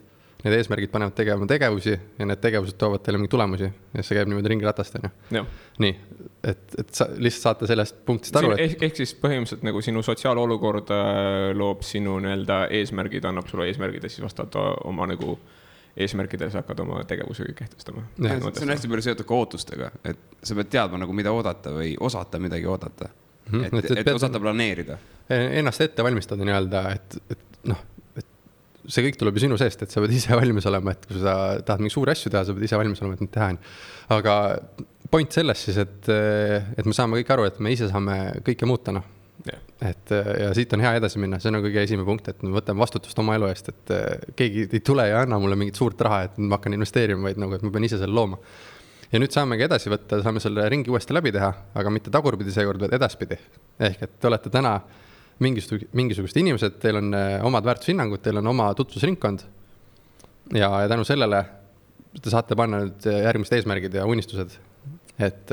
need eesmärgid panevad tegema tegevusi ja need tegevused toovad teile mingi tulemusi ja see käib niimoodi ringiratast. Nii, et sa lihtsalt saate sellest punktist aru. Ehk siis põhimõtteliselt nagu sinu sotsiaalolukord loob sinu eesmärgid, annab sulle eesmärgid ja siis vastavalt oma nagu eesmärkidele sa hakkad oma tegevuse kehtestama. See on hästi palju seotud ka ootustega, et sa pead teadma nagu mida oodata või osata midagi oodata, et osata planeerida. Ennast ette valmistada nii-öelda, et see kõik tuleb ju sinu seest, et sa pead ise valmis olema, et kui sa tahad mingi suuri asju teha, sa pead ise valmis olema, et neid teha. Aga point selles siis, et me saame kõik aru, et me ise saame kõike muuta. Ja siit on hea edasi minna, see on kõige esimene punkt, et me võtame vastutust oma elu eest, et keegi ei tule ja anna mulle mingit suurt raha, et ma hakkan investeerima, vaid nagu, et ma pean ise selle looma. Ja nüüd saamegi edasi võtta, saame selle ringi uuesti läbi teha, aga mitte tagurpidi seekord, vaid edaspidi. Ehk, et te olete täna mingisugused inimesed, teil on omad väärtushinnangud, teil on oma tutvusringkond ja tänu sellele te saate panna nüüd järgmised eesmärgid ja unistused. Et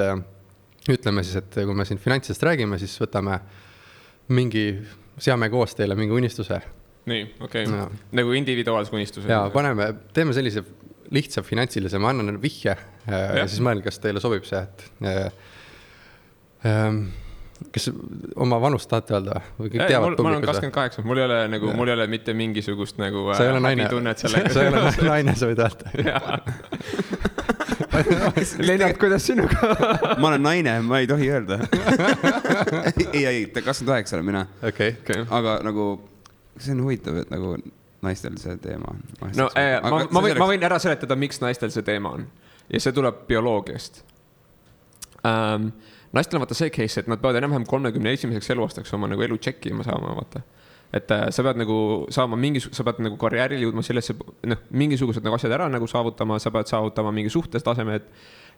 ütleme siis, et kui me siin finantsist räägime, siis võtame mingi seame koos teile mingi unistuse. nii, okei. Nagu individuaalse unistuse. Jaa, teeme sellise lihtsa finantsilise, ma annan vihje ja siis mõelge, kas teile sobib see, et kas oma vanust tahate öelda või kõik teavad publikus? Ma olen 28, mul ei ole mitte mingisugust nagu sa ei ole naine, sa ei ole naine, sa võid öelda. Lennart, kuidas sinuga? Ma olen naine, ma ei tohi öelda. ei, 28 olen mina. Okay. Aga nagu, see on huvitav, et nagu naistel see teema on. No, ma võin ära seletada, miks naistel see teema on. Ja see tuleb bioloogiast. Naistel on vaata see case, et nad peavad enam-vähem 31. eluaastaks oma nagu elu tšekkima saama, vaata. Et sa pead nagu saama sa pead nagu karjääril jõudma sellesse, mingisugused nagu asjad ära nagu saavutama, sa pead saavutama mingi suhtes tasemed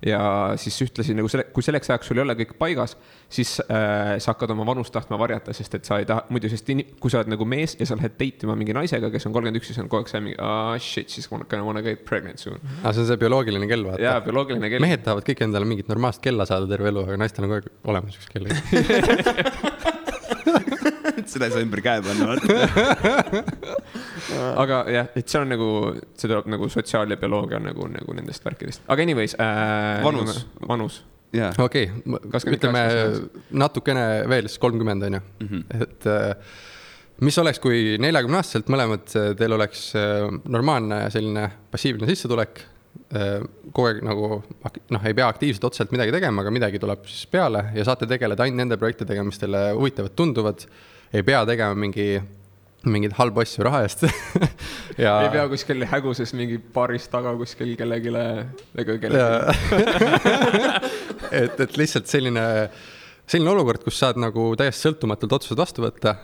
ja siis ühtlasin nagu kui selleks ajaks sul ei ole kõik paigas, siis sa hakkad oma vanust tahtma varjata, sest et sa ei taha, muidu sest kui sa oled nagu mees ja sa lähed deitima mingi naisega, kes on 31, siis on kogu aeg see mingi, shit, siis gonna wanna get pregnant soon. See on see bioloogiline kell, vaata. Jaa, bioloogiline kell. Mehed tahavad kõik endale mingit normaalset kella saada terve elu, aga naistel on kogu aeg olemas üks kell. Seda ei saa ümber käe panna, vaata. Aga jah, et see on nagu, see tuleb nagu sotsiaal- ja bioloogia nagu nendest värkidest. Aga anyways. Vanus. Okei, ütleme natukene veel 30 on ju. Et mis oleks, kui 40-aastaselt mõlemad teil oleks normaalne selline passiivne sissetulek, kogu aeg nagu ei pea aktiivselt otseselt midagi tegema, aga midagi tuleb siis peale ja saate tegeleda ainult nende projektidega, mis teile huvitavad tunduvad, ei pea tegema mingid halbu asju raha eest. Ja ei pea kuskil häguses mingi baaris taga kuskil kellegile. et lihtsalt selline olukord, kus saad nagu täiesti sõltumatult otsused vastu võtta,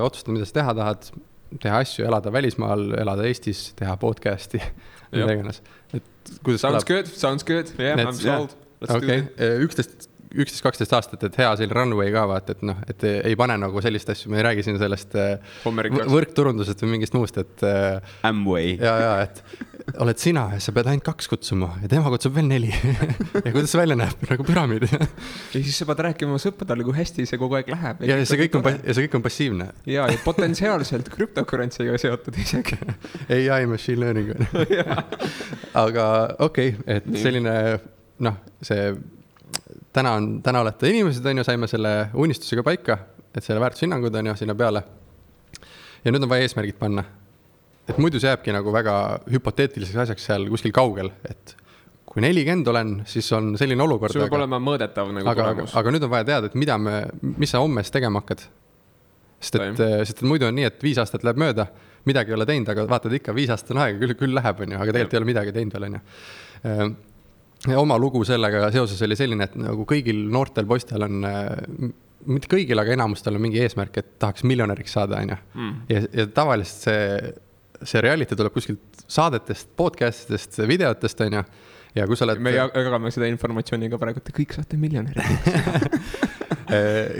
otsustada, mida sa teha tahad, teha asju, elada välismaal, elada Eestis, teha podcasti, mida iganes. Sounds good. Yeah, I'm sold. Okay. 11-12 aastat, et hea selline runway ka vaata, et ei pane nagu sellist asju, me ei räägi siin sellest võrkturundusest või mingist muust, et Amway. Ja, et oled sina ja sa pead ainult 2 kutsuma ja tema kutsub veel 4 ja kuidas see välja näeb, nagu püramiid. Ja siis sa pead rääkima sõpradele, kui hästi see kogu aeg läheb. Ja see kõik on passiivne. Ja potentsiaalselt cryptocurrency'ga seotud isegi. AI machine learning. Aga okei, et selline, see täna olete inimesed, on ju, saime selle unistusega paika, et selle väärtushinnangud on ju sinna peale. Ja nüüd on vaja eesmärgid panna. Et muidu see jääbki nagu väga hüpoteetiliseks asjaks seal kuskil kaugel, et kui 40 olen, siis on selline olukord. See võib olema mõõdetav nagu tulemus. Aga nüüd on vaja teada, et mis sa hommes tegema hakkad. Sest et muidu on nii, et 5 aastat läheb mööda, midagi ei ole teinud, aga vaatad ikka 5 aastat on aega, küll läheb, on ju, aga tegelikult ei ole midagi teinud veel, on ju. Ja oma lugu sellega seoses oli selline, et nagu kõigil noortel poistel on, mitte kõigil, aga enamustel on mingi eesmärk, et tahaks miljonäriks saada, on ju. Ja tavaliselt see reality tuleb kuskilt saadetest, podcastidest, videotest, on ju. Ja kui sa oled... Me jagame seda informatsiooniga praegu, et kõik saate miljonäriks.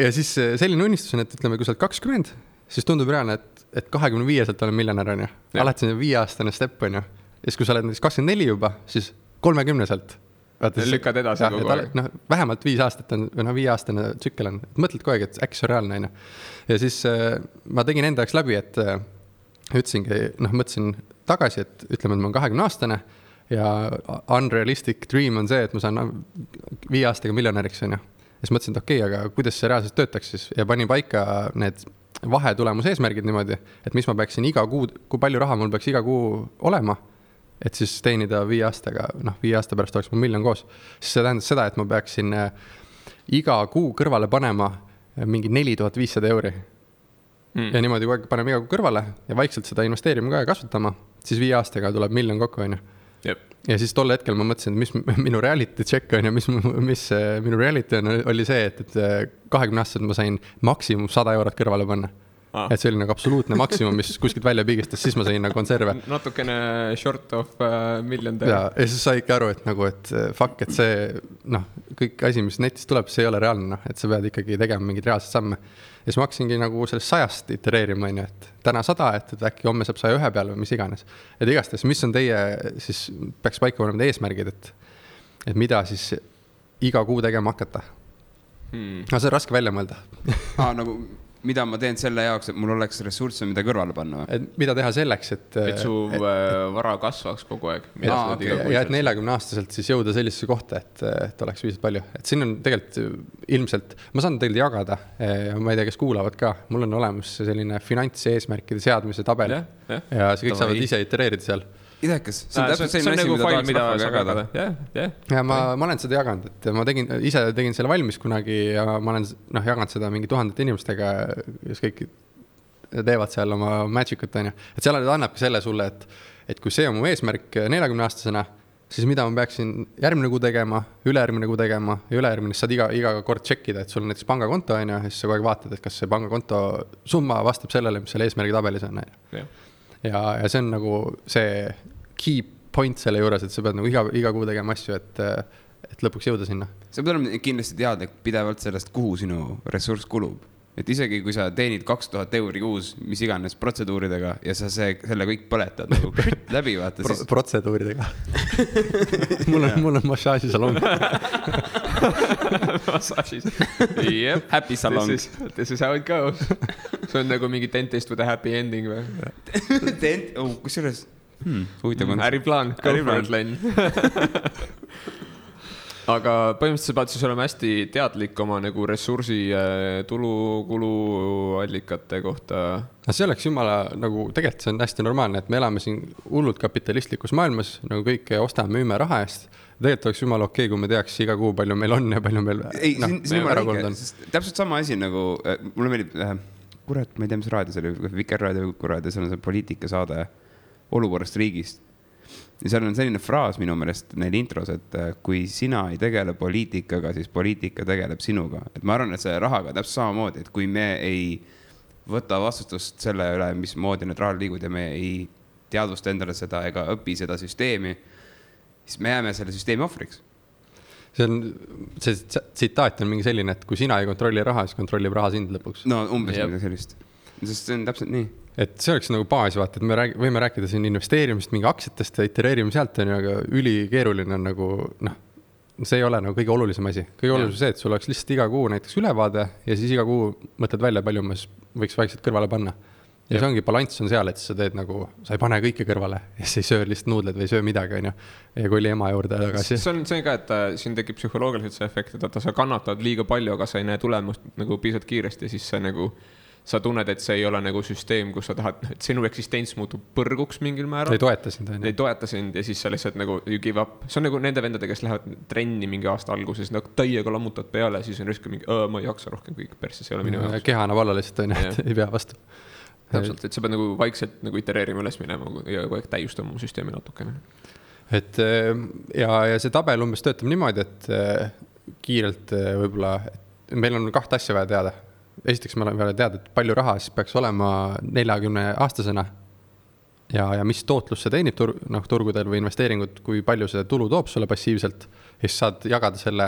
Ja siis selline unistus on, et ütleme, kui sa oled 20, siis tundub reaalne, et 25-selt olen miljonär, on ju. Alati see 5-aastane step, on ju. Ja siis kui sa oled 24 juba, siis 30-selt. Lükkad edasi kogu aeg. Vähemalt 5 aastat on, või 5-aastane tsükkel on. Mõtled kogu aeg, et äkki see on reaalne. Ja siis ma tegin enda jaoks läbi, et ütlesingi, mõtlesin tagasi, et ütleme, et ma olen 20-aastane ja unrealistic dream on see, et ma saan 5 aastaga miljonäriks, on ju. Ja siis mõtlesin, et okei, aga kuidas see reaalselt töötaks siis? Ja panin paika need vahetulemuse eesmärgid niimoodi, et mis ma peaksin iga kuu, kui palju raha mul peaks iga kuu olema, et siis teenida 5 aastaga, 5 aasta pärast oleks mul miljon koos. Siis see tähendab seda, et ma peaksin iga kuu kõrvale panema mingi 4500 euri. Ja niimoodi kogu aeg paneme iga kuu kõrvale ja vaikselt seda investeerima ka ja kasvatama, siis 5 aastaga tuleb miljon kokku, on ju. Ja siis tol hetkel ma mõtlesin, et mis minu reality check on ja mis minu reality oli see, et 20 aastaselt ma sain maksimum 100 eurot kõrvale panna. Et see oli nagu absoluutne maksimum, mis kuskilt välja piigistas, siis ma sain nagu konserve. Natukene short of million. Ja siis sai ikka aru, et nagu, et fuck, et see, kõik asi, mis netist tuleb, see ei ole reaalne, et sa pead ikkagi tegema mingid reaalsed samme. Ja siis ma hakkasingi nagu sellest 100 itereerima, et täna 100, et äkki homme saab 101 peale või mis iganes. Et igastahes, mis on teie, siis peaks paika panema eesmärgid, et mida siis iga kuu tegema hakata. See on raske välja mõelda. Nagu mida ma teen selle jaoks, et mul oleks ressursse, mida kõrvale panna? Mida teha selleks, et su vara kasvaks kogu aeg. Ja et 40-aastaselt siis jõuda sellisesse kohta, et oleks viisalt palju. Et siin on tegelikult ilmselt, ma saan tegelikult jagada, ma ei tea, kes kuulavad ka, mul on olemas selline finantseesmärkide seadmise tabel ja see kõik saavad ise itereerida seal. Idekas, see on täpselt selline asi, mida tahaks rahvaga jagada. Ja ma olen seda jaganud, et ma ise tegin selle valmis kunagi ja ma olen jaganud seda mingi 1000 inimestega, kes kõik teevad seal oma magicut, on ju. Et seal annabki selle sulle, et kui see on mu eesmärk 40-aastasena, siis mida ma peaksin järgmine kuu tegema, ülejärgmine kuu tegema ja ülejärgmine saad iga kord tšekkida, et sul on näiteks pangakonto, on ju, ja siis sa kogu aeg vaatad, et kas see pangakonto summa vastab sellele, mis selle eesmärgi tabelis on. Ja see on nagu see key point selle juures, et sa pead nagu iga kuu tegema asju, et lõpuks jõuda sinna. Sa pead olema kindlasti teadlik pidevalt sellest, kuhu sinu ressurss kulub. Et isegi kui sa teenid 2000 euri kuus, mis iganes protseduuridega ja sa selle kõik põletad nagu läbi, vaata siis... Protseduuridega. mul on massaažisalong. Massaažis. Yep. Happy salong. This is how it goes. See on nagu mingi dentist with a happy ending või? Kusjuures äriplaan, go for it, Len. Aga põhimõtteliselt sa pead siis olema hästi teadlik oma nagu ressursi tulu-kuluallikate kohta. See oleks jumala, nagu tegelikult see on hästi normaalne, et me elame siin hullult kapitalistlikus maailmas, nagu kõike ostame, müüme raha eest. Tegelikult oleks jumala okei, kui me teaks iga kuu, palju meil on ja palju meil ära kolnud on. Täpselt sama asi nagu, mulle meeldib, kurat, ma ei tea, mis raadio, see oli Vikerraadio, kuraadio, see on see poliitikasaade olukorrast riigist. Ja seal on selline fraas minu meelest neil intros, et kui sina ei tegele poliitikaga, siis poliitika tegeleb sinuga. Et ma arvan, et see rahaga täpselt samamoodi, et kui me ei võta vastutust selle üle, mis moodi need rahal liigud ja me ei teadvusta endale seda ega õpi seda süsteemi, siis me jääme selle süsteemi ohvriks. See tsitaat on mingi selline, et kui sina ei kontrolli raha, siis kontrollib raha sind lõpuks. No umbes midagi sellist. Sest see on täpselt nii. Et see oleks nagu baas, vaata, et me võime rääkida siin investeerimist mingi aktsiatest ja itereerime sealt, aga ülikeeruline on nagu, see ei ole nagu kõige olulisem asi. Kõige olulisem see, et sul oleks lihtsalt iga kuu näiteks ülevaade ja siis iga kuu mõtled välja, palju ma võiks vaikselt kõrvale panna. Ja see ongi balanss on seal, et sa teed nagu, sa ei pane kõike kõrvale ja sa ei söö lihtsalt nuudled või ei söö midagi, on ju. Ja kui oli ema juurde tagasi. See on ka, et siin tekib psühholoogiliselt see efekt, et sa kannatad liiga palju, aga sa ei näe tulemust nagu piisavalt kiiresti, siis sa nagu sa tunned, et see ei ole nagu süsteem, kus sa tahad, et sinu eksistents muutub põrguks mingil määral. Ei toeta sind. Ei toeta sind ja siis sa lihtsalt nagu you give up. See on nagu nende vendade, kes lähevad trenni mingi aasta alguses, nagu täiega lammutad peale, siis on risk mingi, ma ei jaksa rohkem kõik persse, see ei ole minu jaoks. Keha annab alla lihtsalt, et ei pea vastu. Täpselt, et sa pead nagu vaikselt nagu itereerima üles minema ja kogu aeg täiustama oma süsteemi natukene. Et ja see tabel umbes töötab niimoodi, et kiirelt võib-olla, et meil on 2 asja vaja teada. Esiteks me oleme vaja teada, et palju raha siis peaks olema 40-aastasena ja mis tootlus see teenib turgudel või investeeringud, kui palju see tulu toob sulle passiivselt. Ja siis saad jagada selle,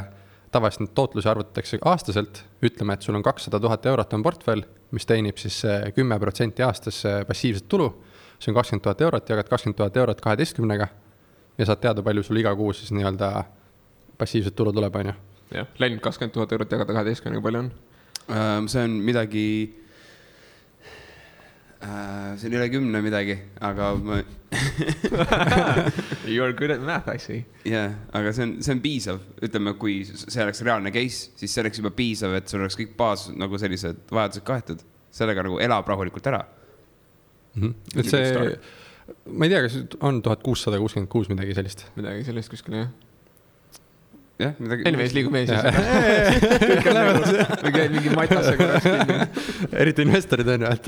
tavaliselt tootluse arvutatakse aastaselt, ütleme, et sul on 200 000 eurot on portfell, mis teenib siis 10% aastas passiivset tulu. See on 20 000 eurot, jagad 20 000 eurot 12-ga ja saad teada, palju sul iga kuu siis nii-öelda passiivset tulu tuleb, on ju. Jah, läinud 20 000 eurot jagada 12-ga palju on? See on midagi, see on üle 10 midagi, aga ma... You are good at math, I see. Yeah, aga see on piisav. Ütleme, kui see oleks reaalne case, siis see oleks juba piisav, et sul oleks kõik baas nagu sellised vajadused kaetud. Sellega nagu elab rahulikult ära. Et see, ma ei tea, kas on 1666 midagi sellist? Midagi sellist kuskil, jah. Jah, midagi... Anyways, liigume siis. Mingi matase korraks. Eriti investorid on ju, et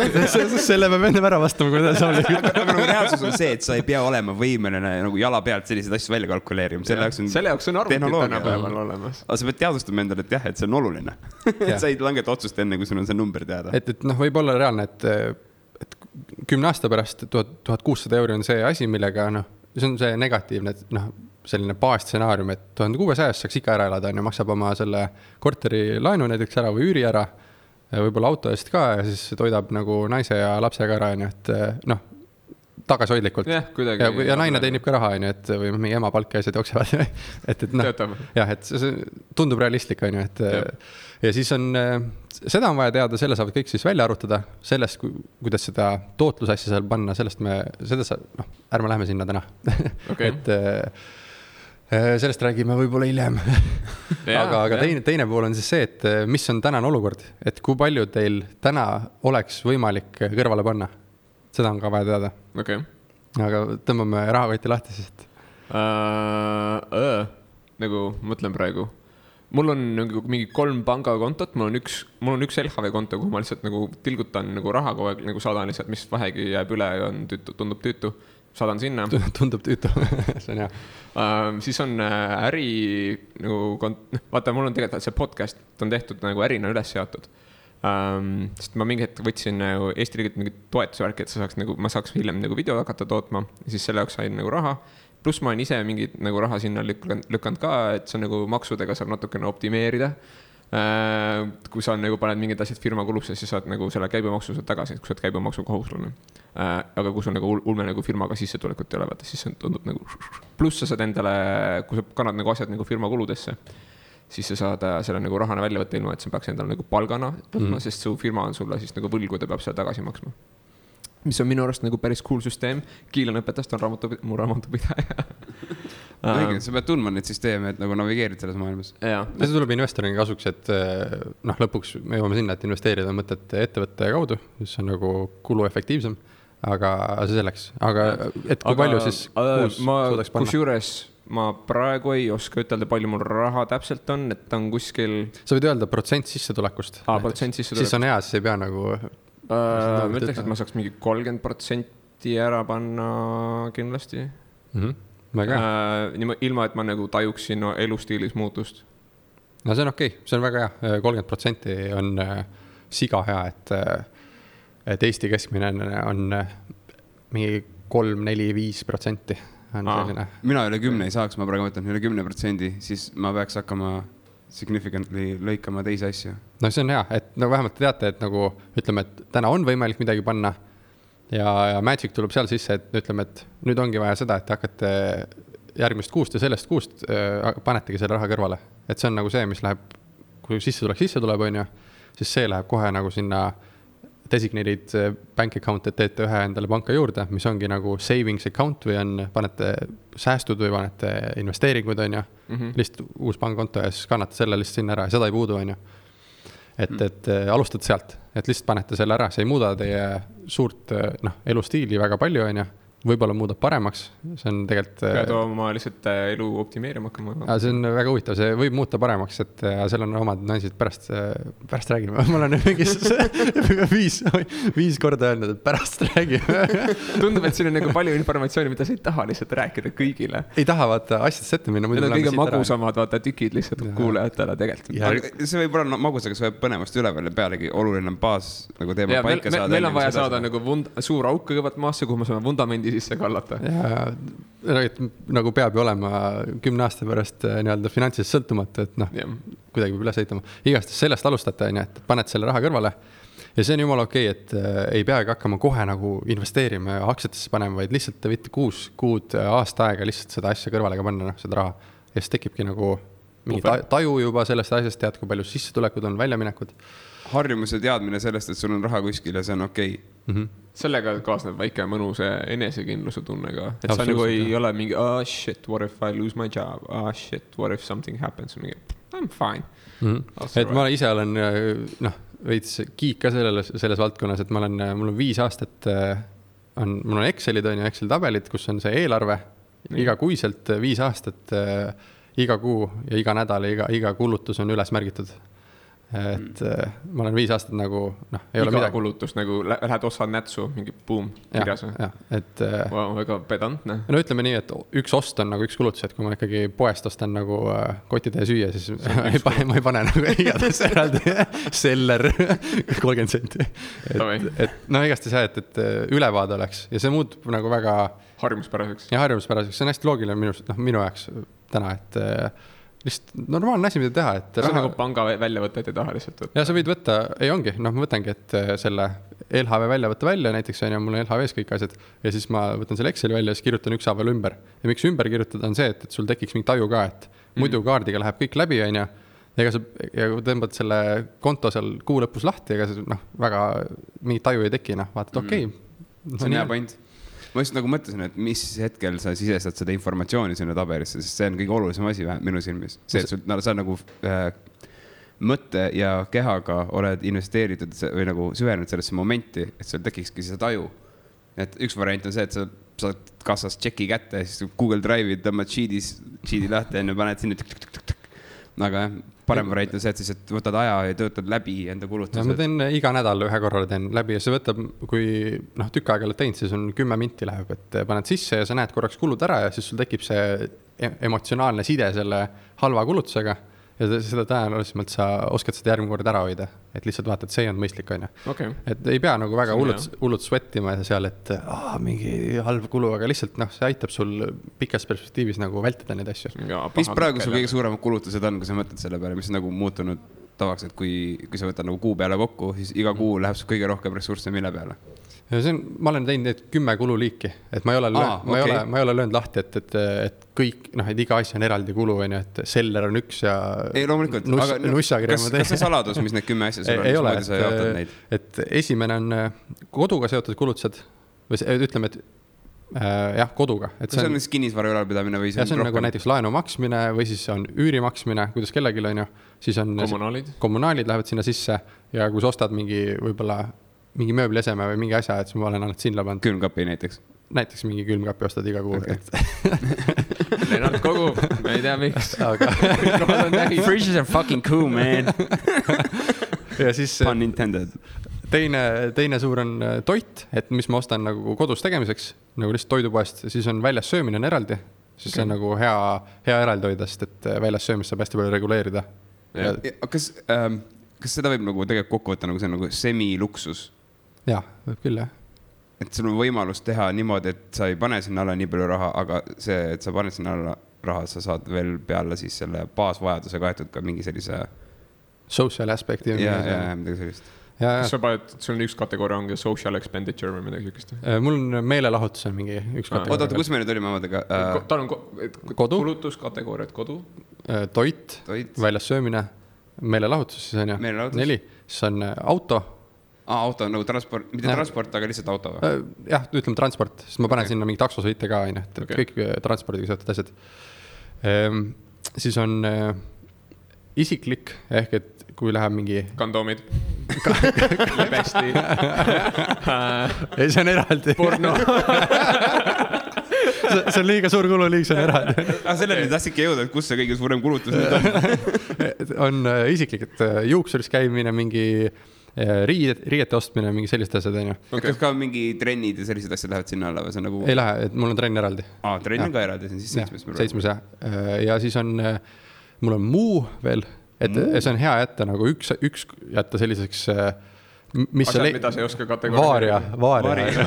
selle peab enne ära vastama, kui ta saab liiguda. Aga nagu reaalsus on see, et sa ei pea olema võimeline nagu jala pealt selliseid asju välja kalkuleerima. Selle jaoks on arvutid tänapäeval olemas. Aga sa pead teadvustama endale, et jah, et see on oluline. Sa ei langeta otsust enne, kui sul on see number teada. Et võib olla reaalne, et 10 aasta pärast 1600 euri on see asi, millega see on see negatiivne, selline baasstsenaarium, et 1600 saaks ikka ära elada, maksab oma selle korteri laenu näiteks ära või üüri ära, võib-olla auto eest ka ja siis toidab nagu naise ja lapsega ära, et tagasihoidlikult. Ja naine teenib ka raha, on ju, et või mingi ema palk ja asjad jooksevad. et noh, jah, et see tundub realistlik, on ju, et ja siis on, seda on vaja teada, selle saavad kõik siis välja arutada, sellest, kuidas seda tootlusasja seal panna, ärme lähme sinna täna. et sellest räägime võib-olla hiljem. aga teine pool on siis see, et mis on tänane olukord, et kui palju teil täna oleks võimalik kõrvale panna. Seda on ka vaja teada. Okay. Aga tõmbame rahakoti lahti siis. Nagu mõtlen praegu. Mul on nagu mingi 3 pangakontot, mul on üks LHV konto, kuhu ma lihtsalt nagu tilgutan nagu raha kogu aeg, nagu saadan lihtsalt, mis vähegi jääb üle ja tundub tüütu. Saadan sinna. Tundub tüütu, see on hea. Siis on äri nagu, vaata, mul on tegelikult see podcast, on tehtud nagu ärina üles seatud. Sest ma mingi hetk võtsin Eesti riigilt mingi toetusvärki, et ma saaks hiljem nagu video hakata tootma ja siis selle jaoks sain nagu raha. Pluss ma olen ise mingit nagu raha sinna lükkanud ka, et see nagu maksudega saab natukene optimeerida. Kui sa nagu paned mingid asjad firma kulusse, siis saad nagu selle käibemaksu tagasi, kui sa oled käibemaksu kohuslane. Aga kui sul nagu ulme nagu firmaga sissetulekut ei ole, vaata, siis see tundub nagu. Pluss sa saad endale, kui sa kannad nagu asjad nagu firma kuludesse, siis sa saad selle nagu rahana välja võtta ilma, et sa peaks endale nagu palgana võtma, sest su firma on sulle siis nagu võlgu, ta peab seda tagasi maksma. Mis on minu arust nagu päris cool süsteem. Kiilan õpetast on mu raamatupidaja. Sa pead tundma neid süsteeme, et nagu navigeerid selles maailmas. Ja see tuleb investorina kasuks, et lõpuks me jõuame sinna, et investeerida mõtet ettevõtte kaudu, mis on nagu kuluefektiivsem, aga see selleks. Aga et kui palju siis kuus suudaks panna? Kusjuures ma praegu ei oska ütelda, palju mul raha täpselt on, et on kuskil... Sa võid öelda protsent sissetulekust. Siis on hea, siis ei pea nagu... Ma ütleks, et ma saaks mingi 30% ära panna kindlasti. Ilma, et ma nagu tajuksin elustiilis muutust. No see on okei, see on väga hea. 30% on siga hea, et Eesti keskmine on mingi 3, 4, 5%. Mina üle 10 ei saaks, ma praegu mõtlen üle 10%, siis ma peaks hakkama significantly lõikama teisi asju. No see on hea, et nagu vähemalt te teate, et nagu ütleme, et täna on võimalik midagi panna ja Magic tuleb seal sisse, et ütleme, et nüüd ongi vaja seda, et hakkate järgmist kuust ja sellest kuust panetegi selle raha kõrvale. Et see on nagu see, mis läheb, kui sisse tuleb, on ju, siis see läheb kohe nagu sinna designated bank account, et teete ühe endale panka juurde, mis ongi nagu savings account või on, panete säästud või panete investeeringud, on ju, lihtsalt uus pangakonto ja siis kannate selle lihtsalt sinna ära ja seda ei puudu, on ju. Et alustate sealt, et lihtsalt panete selle ära, see ei muuda teie suurt elustiili väga palju, on ju. Võib-olla muudab paremaks, see on tegelikult... Pead oma lihtsalt elu optimeerima hakkama. See on väga huvitav, see võib muuta paremaks, et seal on omad naisid pärast räägime. Ma olen mingis 5 korda öelnud, et pärast räägime. Tundub, et siin on nagu palju informatsiooni, mida sa ei taha lihtsalt rääkida kõigile. Ei taha vaata asjadest ette minna. Need on kõige magusamad vaata tükid lihtsalt kuulajatele tegelikult. See võib olla magusega, see võib põnevast üleval ja pealegi oluline baas nagu teema paika saada. Meil on vaja saada nagu suur auk kõigepealt maasse, kuhu me saame vundamendi sisse kallata. Ja nagu peab ju olema 10 aasta pärast nii-öelda finantsiliselt sõltumata, et kuidagi peab üles ehitama. Igast sellest alustate, et paned selle raha kõrvale ja see on jumala okei, et ei peagi hakkama kohe nagu investeerima ja aktsiatesse panema, vaid lihtsalt te võite 6 kuud aasta aega lihtsalt seda asja kõrvale ka panna, seda raha. Ja siis tekibki nagu mingi taju juba sellest asjast, tead, kui palju sissetulekud on, väljaminekud. Harjumuse teadmine sellest, et sul on raha kuskil ja see on okei. Sellega kaasneb väike mõnuse enesekindluse tunnega. Et sa nagu ei ole mingi, shit, what if I lose my job? Shit, what if something happens? I'm fine. Et ma ise olen veits kiik ka selles valdkonnas, et mul on 5 aastat, mul on Excelid, Excel tabelid, kus on see eelarve iga kuiselt 5 aastat, iga kuu ja iga nädal ja iga kulutus on üles märgitud. Et ma olen 5 aastat nagu ei ole midagi. Kulutus nagu lähed osa nätsu, mingi boom kirjas. Väga pedantne. No ütleme nii, et üks ost on nagu üks kulutus, et kui ma ikkagi poest ostan nagu kotitäie süüa, siis ma ei pane nagu igatahes eraldi seller 30 senti. Et igast ei saa, et ülevaade oleks ja see muutub nagu väga harjumuspäraseks. Ja harjumuspäraseks, see on hästi loogiline minu jaoks täna, et lihtsalt normaalne asi, mida teha. See on nagu panga väljavõtted ei taha lihtsalt võtta. Ja sa võid võtta, ei ongi, ma võtangi, et selle LHV välja võtta välja, näiteks on ju, mul on LHV-s kõik asjad ja siis ma võtan selle Exceli välja ja siis kirjutan ükshaaval ümber. Ja miks ümber kirjutada on see, et sul tekiks mingi taju ka, et muidu kaardiga läheb kõik läbi, on ju. Ja kui tõmbad selle konto seal kuu lõpus lahti, ega see väga mingi taju ei teki, vaatad, okei. See on hea point. Ma just nagu mõtlesin, et mis hetkel sa sisestad seda informatsiooni sinna tabelisse, sest see on kõige olulisem asi minu silmis. See, et sa nagu mõtte ja kehaga oled investeeritud või nagu süvenenud sellesse momenti, et sul tekikski see taju. Et üks variant on see, et sa saad kassas tšeki kätte ja siis Google Drive'i tõmbad sheet'i lahti ja paned sinna. Aga parem variant on see, et siis võtad aja ja töötad läbi enda kulutused. Ma teen iga nädal ühe korra teen läbi ja see võtab, kui tükk aega oled teinud, siis on 10 minti läheb, et paned sisse ja sa näed korraks kulud ära ja siis sul tekib see emotsionaalne side selle halva kulutusega. Ja seda tõenäolisemalt sa oskad seda järgmine kord ära hoida, et lihtsalt vaatad, see on mõistlik, on ju. Okay. Et ei pea nagu väga hullult sweatima seal, et mingi halb kulu, aga lihtsalt see aitab sul pikas perspektiivis nagu vältida neid asju. Mis praegu sul kõige suuremad kulutused on, kui sa mõtled selle peale, mis on nagu muutunud tavaks, et kui sa võtad nagu kuu peale kokku, siis iga kuu läheb sul kõige rohkem ressursse mille peale? Ja ma olen teinud need 10 kululiiki, et ma ei ole löönud lahti, et kõik, et iga asja on eraldi kulu, et seller on üks ja ei, loomulikult. Nussakirja ma teen. Kas see saladus, mis need 10 asja sul on? Ei ole, et esimene on koduga seotud kulutused, või ütleme, et jah, koduga. See on kinnisvara ülalpidamine või see on nagu näiteks laenu maksmine või siis on üüri maksmine, kuidas kellelgi on ju, siis on kommunaalid lähevad sinna sisse ja kui sa ostad võib-olla mingi mööblieseme või mingi asja, et ma olen ainult sinna pannud. Külmkapi näiteks? Näiteks mingi külmkapi ostad iga kuu. Lennart kogu, ma ei tea miks. Fridges are fucking cool, man. Ja siis Pun intended. Teine suur on toit, et mis ma ostan nagu kodus tegemiseks, nagu lihtsalt toidupoest, siis on väljas söömine on eraldi, siis see on nagu hea eraldi hoidast, et väljas söömist saab hästi palju reguleerida. Kas seda võib nagu tegelikult kokku võtta, nagu see on nagu semiluksus? Jah, võib küll, jah. Et sul on võimalus teha niimoodi, et sa ei pane sinna alla nii palju raha, aga see, et sa paned sinna alla raha, sa saad veel peale siis selle baasvajaduse kaetud ka mingi sellise social aspekti. Ja, midagi sellist. Kas sa paned, sul on üks kategooria ongi social expenditure või midagi sükest? Mul on meelelahutus on mingi üks kategooria. Oota, kus me nüüd olime omadega? Tal on kulutuskategooriad, kodu? Toit, väljas söömine, meelelahutus, siis on ju 4, siis on auto. Auto on nagu transport, mitte transport, aga lihtsalt auto või? Jah, ütleme transport, sest ma panen sinna mingi taksosõite ka, et kõik transpordiga seotud asjad. Siis on isiklik, ehk et kui läheb mingi kondoomid lebesti ei, see on eraldi porno see on liiga suur kulu, see on eraldi sellele tahtsidki jõuda, et kus see kõige suurem kulutus nüüd on isiklik, et juuksuris käimine, mingi riiete ostmine, mingi sellist asjad, on ju. Kas ka mingi trennid ja sellised asjad lähevad sinna alla või see on nagu... Ei lähe, et mul on trenn eraldi. Trenn on ka eraldi, see on siis 7. 7, jah. Ja siis on, mul on muu veel, et see on hea jätta nagu üks jätta selliseks... Asjad, mida sa ei oska kategooria. Vaaria.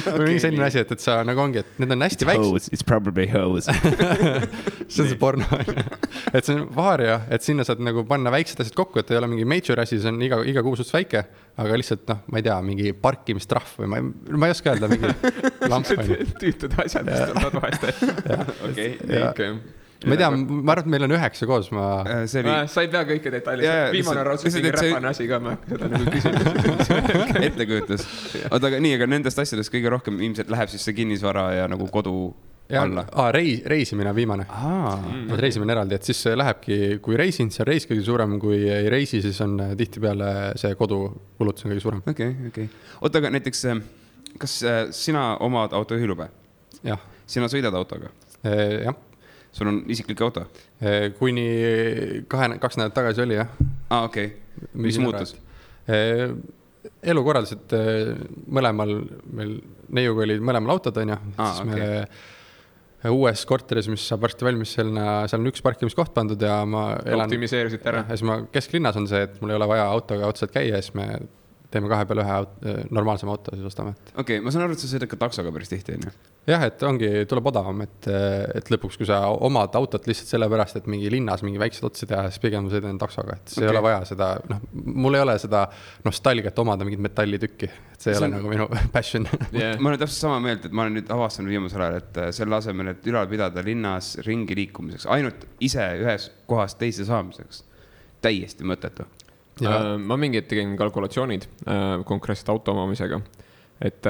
Või mingi selline asi, et sa nagu ongi, et need on hästi väiksed. It's probably hose. See on see porno. Et see on vaaria, et sinna saad nagu panna väiksed asjad kokku, et ei ole mingi major asi, see on iga kuu suht väike, aga lihtsalt, ma ei tea, mingi parkimistrahv või ma ei oska öelda, mingi lamp. Tüütud asjad, mis tulevad vahest. Okei. Ma ei tea, ma arvan, et meil on 9 koos. Sa ei pea kõike detailist. Viimane raudselt mingi räpane asi ka, ma seda nagu küsimus. Ettekujutus. Aga nendest asjadest kõige rohkem ilmselt läheb siis see kinnisvara ja nagu kodu alla. Reisimine on viimane. Reisimine eraldi, et siis lähebki, kui reisin, see on reis kõige suurem, kui ei reisi, siis on tihtipeale see kodu kulutus on kõige suurem. Okei. Oota, aga näiteks, kas sina omad autojuhilube? Jah. Sina sõidad autoga? Jah. Sul on isiklik auto? Kuni 2 nädalat tagasi oli, jah. Okei. Mis muutus? Elukorraldused mõlemal, meil neiuga oli mõlemal autod, on ju. Siis me uues korteris, mis saab varsti valmis, seal on üks parkimiskoht pandud ja ma elan... Optimiseerisid ära. Ja siis ma kesklinnas on see, et mul ei ole vaja autoga otsad käia, siis me teeme 2 peale 1 normaalsema auto, siis ostame. Okei, ma saan aru, et sa sõidad ka taksoga päris tihti, on ju? Jah, et ongi, tuleb odavam, et lõpuks, kui sa omad autot lihtsalt sellepärast, et mingi linnas mingi väiksed otsi teha, siis pigem sõidan taksoga, et see ei ole vaja seda, noh, mul ei ole seda nostalgiat omada mingit metallitükki, et see ei ole nagu minu passion. Ma olen täpselt sama meelt, et ma olen nüüd avastanud viimasel ajal, et selle asemel, et ülal pidada linnas ringi liikumiseks, ainult ise ühes kohast teise saamiseks, täiesti mõttetu. Ma mingi hetk tegin kalkulatsioonid konkreetselt auto omamisega, et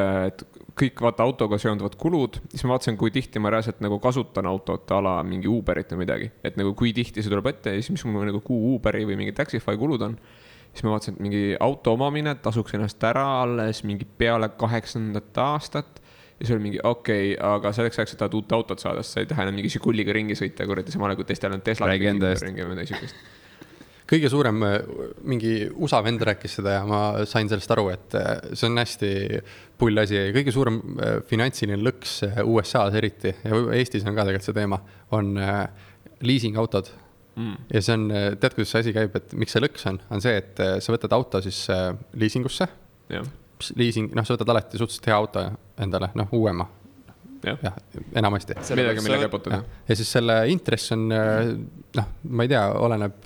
kõik vaata autoga seonduvad kulud, siis ma vaatasin, kui tihti ma reaalselt nagu kasutan autot ala mingi Uberit või midagi, et nagu kui tihti see tuleb ette ja siis mis mul nagu kuu Uberi või mingi Taxify kulud on, siis ma vaatasin, et mingi auto omamine tasuks ennast ära alles mingi peale 8. aastat ja see oli mingi okei, aga selleks ajaks, et tahad uut autot saada, sa ei taha enam mingi Žiguliga ringi sõita, kuradi samale kui teistel on Tesla ringi või niisugust. Kõige suurem mingi USA vend rääkis seda ja ma sain sellest aru, et see on hästi pull asi. Kõige suurem finantsiline lõks USA-s eriti ja Eestis on ka tegelikult see teema, on leasing autod. Ja see on, tead, kuidas see asi käib, et miks see lõks on see, et sa võtad auto siis leasingusse. Leasing, noh, sa võtad alati suhteliselt hea auto endale, noh, uuema. Ja, enamasti. Millega põtuda. Ja siis selle intress on, noh, ma ei tea, oleneb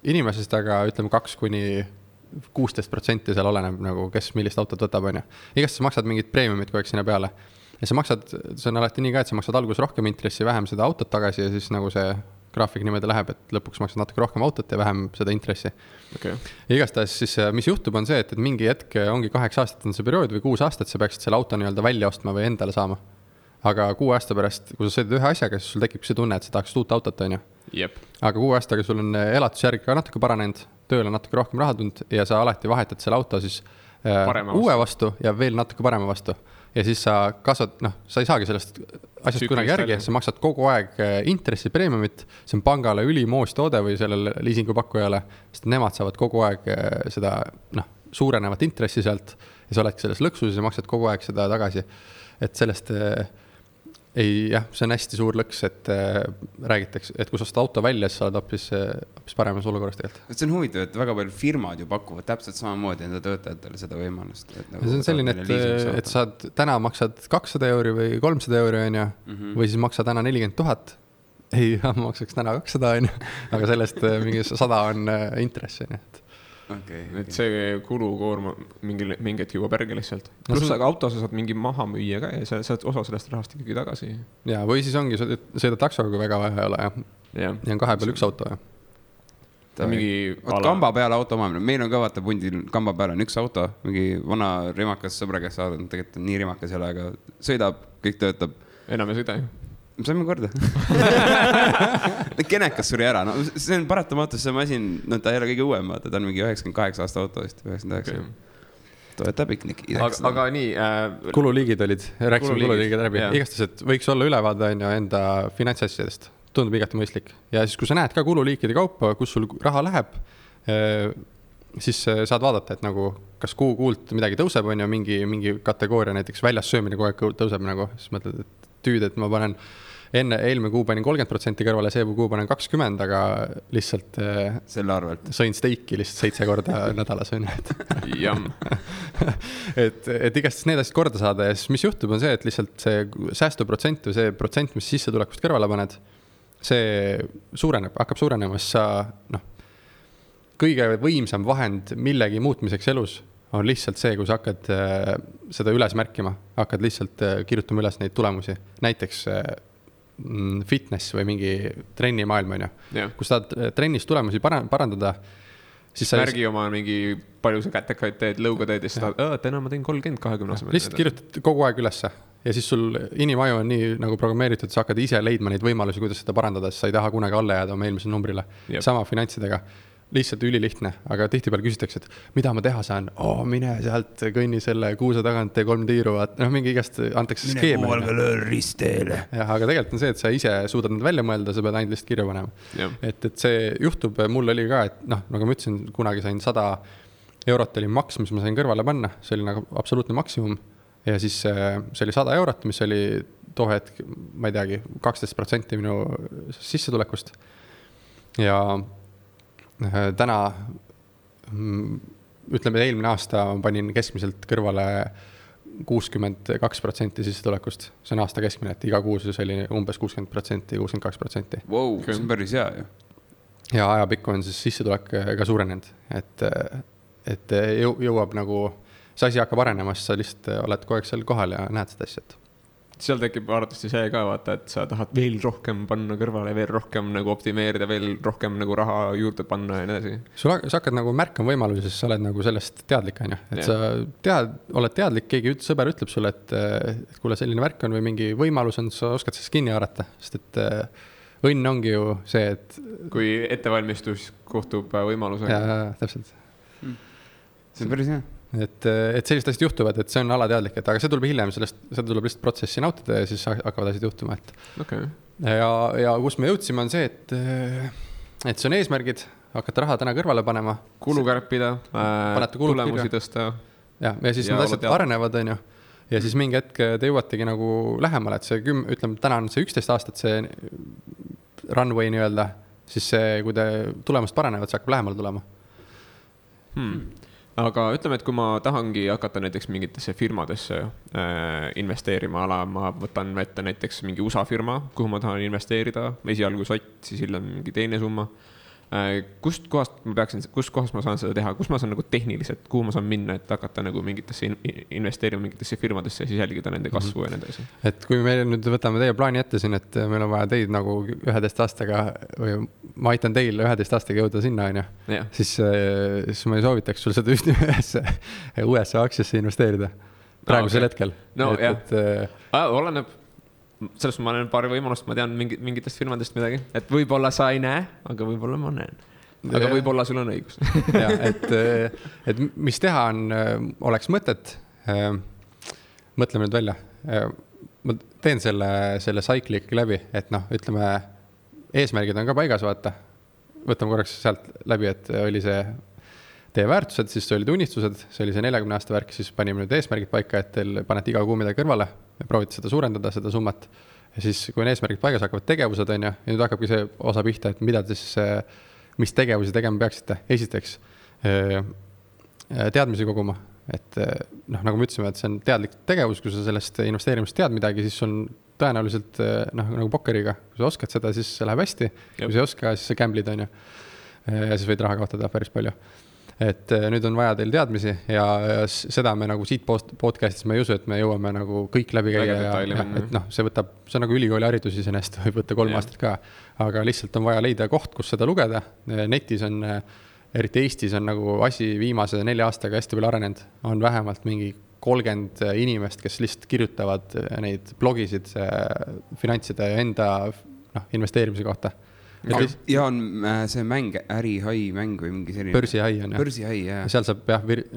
inimesest, aga ütleme 2–16% seal oleneb nagu, kes millist autot võtab, on ju. Igast sa maksad mingid preemiumid kogu aeg sinna peale. Ja sa maksad, see on alati nii ka, et sa maksad alguses rohkem intressi, vähem seda autot tagasi ja siis nagu see graafik niimoodi läheb, et lõpuks maksad natuke rohkem autot ja vähem seda intressi. Okay. Ja igastahes siis, mis juhtub, on see, et mingi hetk ongi 8 aastat on see periood või 6 aastat, sa peaksid selle auto nii-öelda välja ostma või endale saama. Aga 6 aasta pärast, kui sa sõidad ühe asjaga, siis sul tekib see tunne, et sa tahaks uut autot, on ju. Jep. Aga 6 aastaga sul on elatusjärg ka natuke paranenud, tööl on natuke rohkem raha tulnud ja sa alati vahetad selle auto siis uue vastu ja veel natuke parema vastu. Ja siis sa kasvad, noh, sa ei saagi sellest asjast kunagi järgi, sa maksad kogu aeg intressi preemiumit, see on pangale ülimoos toode või sellele liisingupakkujale, sest nemad saavad kogu aeg seda, noh, suurenevat intressi sealt ja sa oledki selles lõksus ja maksad kogu aeg seda tagasi. Et sellest ei, jah, see on hästi suur lõks, et räägitakse, et kui sa auto välja, siis sa oled hoopis paremas olukorras tegelikult. See on huvitav, et väga palju firmad ju pakuvad täpselt samamoodi enda töötajatele seda võimalust. Nagu see on selline, et sa täna maksad 200 euri või 300 euri, on ju, või siis maksad täna 40 000. Ei, ma maksaks täna 200, on ju, aga sellest mingi 100 on intress, on ju. Okay. Et see kulukoorma mingi hetk juba perge lihtsalt. Pluss aga auto sa saad mingi maha müüa ka ja sa saad osa sellest rahast ikkagi tagasi. Ja, või siis ongi, sõida taksoga, kui väga vaja ei ole. Ja on 2 peal 1 auto. Kamba peale auto omamine. Meil on ka vaata pundil kamba peale on 1 auto. Mingi vana rimakas sõbra, kes saadab, tegelikult on nii rimakas ei ole, aga sõidab, kõik töötab. Enam ei sõida ju. Saime korda. Kenekas suri ära. No, see on paratamatus, see masin, no ta ei ole kõige uuem, vaata, ta on mingi 98 aasta auto vist, 99. Toeta piknik. Aga nii... Kululiigid olid, rääkisime kululiigid läbi. Igastas, et võiks olla ülevaade enda finantsasjadest. Tundub igati mõistlik. Ja siis, kui sa näed ka kululiikide kaupa, kus sul raha läheb, siis saad vaadata, et nagu, kas kuult midagi tõuseb, on ju, mingi kategooria, näiteks väljas söömine kogu aeg tõuseb nagu, siis mõtled, et tüüd, et ma panen eelmine kuu panin 30% kõrvale, see kuu panen 20%, aga lihtsalt selle arvelt sõin steiki lihtsalt 7 korda nädalas. et igast need asjad korda saada ja siis mis juhtub on see, et lihtsalt see säästuprotsent või see protsent, mis sissetulekust kõrvale paned, see suureneb, hakkab suurenema, siis sa, noh, kõige võimsam vahend millegi muutmiseks elus on lihtsalt see, kui sa hakkad seda üles märkima, hakkad lihtsalt kirjutama üles neid tulemusi. Näiteks fitness või mingi trennimaailm, on ju. Kui sa tahad trennis tulemusi parandada, siis sa märgi oma mingi palju sa kätekaid teed, lõuga teed ja siis tahad, täna ma teen 30-20 asemel. Lihtsalt kirjutad kogu aeg ülesse ja siis sul inimaju on nii nagu programmeeritud, sa hakkad ise leidma neid võimalusi, kuidas seda parandada, siis sa ei taha kunagi alla jääda oma eelmisele numbrile. Sama finantsidega. Lihtsalt ülilihtne, aga tihtipeale küsitakse, et mida ma teha saan? Mine sealt, kõnni selle kuuse tagant, tee 3 tiiru, mingi igast antakse skeeme. Mine kuualga löör risteele. Jah, aga tegelikult on see, et sa ise suudad need välja mõelda, sa pead ainult lihtsalt kirja panema. Et see juhtub, mul oli ka, et noh, nagu ma ütlesin, kunagi sain 100 eurot oli maks, mis ma sain kõrvale panna, see oli nagu absoluutne maksimum. Ja siis see oli 100 eurot, mis oli too hetk, ma ei teagi, 12% minu sissetulekust. Ja täna ütleme, eelmine aasta ma panin keskmiselt kõrvale 62% sissetulekust. See on aasta keskmine, et iga kuus oli umbes 60%, 62%. Wow, see on päris hea ju. Ja ajapikku on siis sissetulek ka suurenenud, et jõuab nagu, see asi hakkab arenema, sa lihtsalt oled kogu aeg seal kohal ja näed seda asja. Seal tekib arvatavasti see ka vaata, et sa tahad veel rohkem panna kõrvale, veel rohkem nagu optimeerida, veel rohkem nagu raha juurde panna ja nii edasi. Sa hakkad nagu märkama võimalusi, sest sa oled nagu sellest teadlik, on ju. Et sa oled teadlik, keegi sõber ütleb sulle, et kuule selline värk on või mingi võimalus on, sa oskad sellest kinni haarata, sest et õnn ongi ju see, et kui ettevalmistus kohtub võimalusega. Ja, täpselt. See on päris hea. Et sellised asjad juhtuvad, et see on alateadlik, et aga see tuleb hiljem, seda tuleb lihtsalt protsessi nautida ja siis hakkavad asjad juhtuma. Okay. Ja kus me jõudsime on see, et see on eesmärgid, hakata raha täna kõrvale panema. Kulu kärpida, tulemusi tõsta. Ja siis need asjad arenevad, on ju. Ja siis mingi hetk te jõuategi nagu lähemale, et see ütleme, täna on see 11 aastat, see runway nii öelda, siis see, kui te tulemust paranevad, see hakkab lähemale tulema. Aga ütleme, et kui ma tahangi hakata näiteks mingitesse firmadesse investeerima, ma võtan ette näiteks mingi USA firma, kuhu ma tahan investeerida, esialgu sott, siis hiljem mingi teine summa. Kust kohast ma saan seda teha, kus ma saan nagu tehniliselt, kuhu ma saan minna, et hakata nagu mingitesse investeerima mingitesse firmadesse ja siis jälgida nende kasvu ja nende asi. Et kui me nüüd võtame teie plaani ette siin, et meil on vaja teid nagu 11 aastaga või ma aitan teil 11 aastaga jõuda sinna, on ju, siis ma ei soovitaks sul seda ühesse USA aktsiasse investeerida praegusel hetkel. No oleneb. Sellest ma olen paari võimalust, ma tean mingitest firmadest midagi, et võib-olla sa ei näe, aga võib-olla ma näen. Aga võib-olla sul on õigus. Ja, et mis teha on, oleks mõtet, mõtleme nüüd välja. Ma teen selle cyclic läbi, et ütleme, eesmärgid on ka paigas, vaata. Võtame korraks sealt läbi, et oli see teie väärtused, siis olid unistused, see oli see 40 aasta värk, siis panime nüüd eesmärgid paika, et teil panete iga kuu midagi kõrvale, proovite seda suurendada, seda summat. Ja siis, kui on eesmärgid paigas, hakkavad tegevused, on ju, ja nüüd hakkabki see osa pihta, et mida te siis, mis tegevusi tegema peaksite. Esiteks, teadmisi koguma, et nagu me ütlesime, et see on teadlik tegevus, kui sa sellest investeerimist tead midagi, siis on tõenäoliselt nagu pokkeriga, kui sa oskad seda, siis see läheb hästi, kui sa ei oska, siis sa gamblid, on ju, ja siis võid raha kaotada päris palju. Et nüüd on vaja teil teadmisi ja seda me nagu siit podcastis me ei usu, et me jõuame nagu kõik läbi käia ja et see on nagu ülikooli haridus iseenesest, võib võtta 3 aastat ka, aga lihtsalt on vaja leida koht, kus seda lugeda. Netis on, eriti Eestis on nagu asi viimase 4 aastaga hästi palju arenenud, on vähemalt mingi 30 inimest, kes lihtsalt kirjutavad neid blogisid finantside enda investeerimise kohta. Ja on see mäng, ärihai mäng või mingi selline. Börsihai on, jah. Börsihai, jah. Seal saab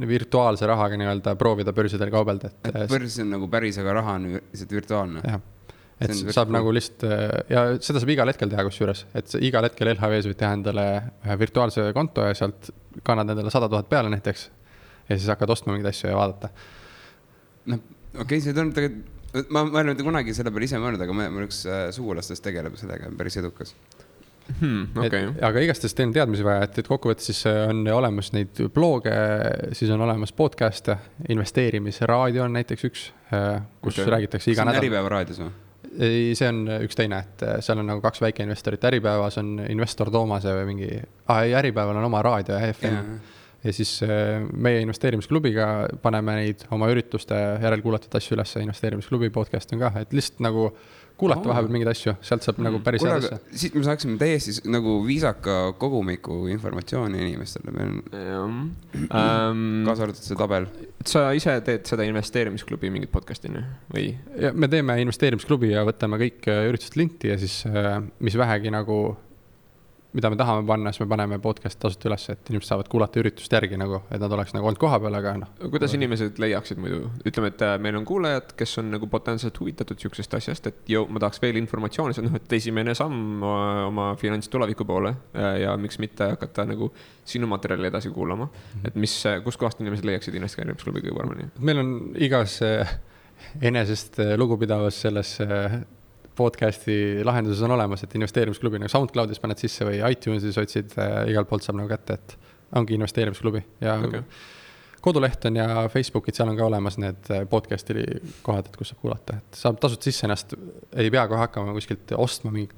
virtuaalse rahaga nii-öelda proovida börsidel kaubelda. Et börs on nagu päris, aga raha on lihtsalt virtuaalne. Jah, et saab nagu lihtsalt, ja seda saab igal hetkel teha kusjuures, et igal hetkel LHV-s võid teha endale ühe virtuaalse konto ja sealt kannad endale 100 000 peale näiteks ja siis hakkad ostma mingeid asju ja vaadata. Okei, see on tegelikult, ma olen kunagi selle peale ise mõelnud, aga ma üks sugulastest tegeleb sellega, päris edukas. Okay. Aga igastest teen teadmisi vaja, et kokkuvõttes siis on olemas neid blooge, siis on olemas podcast, investeerimisraadio on näiteks üks, kus räägitakse iga nädal. See on Äripäeva raadios või? See on üks teine, et seal on nagu 2 väikeinvestorit. Äripäevas on investor Toomase või mingi, Äripäeval on oma raadio ja FM. Ja siis meie investeerimisklubiga paneme neid oma ürituste järelkuulatud asju üles, investeerimisklubi podcast on ka, et lihtsalt nagu kuulata vahepeal mingeid asju, sealt saab nagu päris head asja. Siit me saaksime täiesti nagu viisaka kogumiku informatsiooni inimestele. Kaasa arvatud see tabel. Sa ise teed seda investeerimisklubi mingit podcastini või? Ja me teeme investeerimisklubi ja võtame kõik üritused linti ja siis mis vähegi nagu mida me tahame panna, siis me paneme podcast tasuta üles, et inimesed saavad kuulata üritust järgi nagu, et nad oleks nagu olnud koha peal, aga Kuidas inimesed leiaksid muidu? Ütleme, et meil on kuulajad, kes on nagu potentsiaalselt huvitatud siuksest asjast, et ma tahaks veel informatsiooni, et esimene samm oma finantstuleviku poole ja miks mitte hakata nagu sinu materjali edasi kuulama. Et kus kohast inimesed leiaksid investeerimisklubi kõige paremini? Meil on igas enesest lugupidavas selles podcasti lahenduses on olemas, et investeerimisklubi nagu SoundCloudis paned sisse või iTunesis otsid, igalt poolt saab nagu kätte, et ongi investeerimisklubi ja koduleht on ja Facebookid, seal on ka olemas need podcast'i kohad, et kus saab kuulata, et saab tasuta sisse ennast, ei pea kohe hakkama kuskilt ostma mingi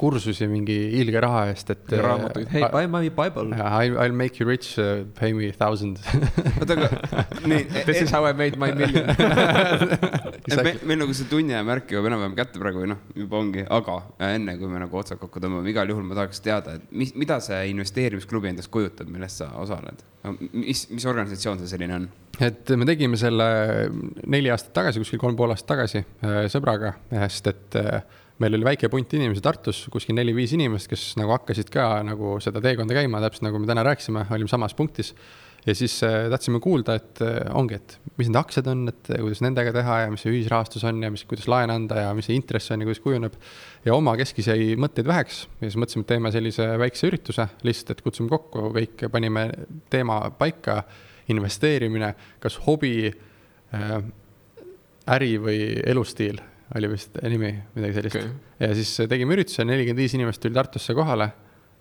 kursusi mingi ilge raha eest, et raamatuid, hey, buy my Bible. I'll make you rich, pay me 1,000. This is how I made my million. Meil nagu see tunni ja märk juba enam-vähem kätte praegu või juba ongi, aga enne kui me nagu otsad kokku tõmbame, igal juhul ma tahaks teada, et mida see investeerimisklubi endast kujutab, millest sa osaled? Mis organisatsioon see selline on? Et me tegime selle 4 aastat tagasi, kuskil 3,5 aastat tagasi sõbraga, sest et meil oli väike punt inimesi Tartus, kuskil 4-5 inimest, kes nagu hakkasid ka nagu seda teekonda käima, täpselt nagu me täna rääkisime, olime samas punktis. Ja siis tahtsime kuulda, et ongi, et mis need aktsiad on, et kuidas nendega teha ja mis see ühisrahastus on ja kuidas laen anda ja mis see intress on ja kuidas kujuneb. Ja oma keskis jäi mõtteid väheks ja siis mõtlesime, et teeme sellise väikse ürituse, lihtsalt, et kutsume kokku, kõik panime teema paika, investeerimine, kas hobi, äri või elustiil oli vist nimi, midagi sellist. Ja siis tegime ürituse, 45 inimest tuli Tartusse kohale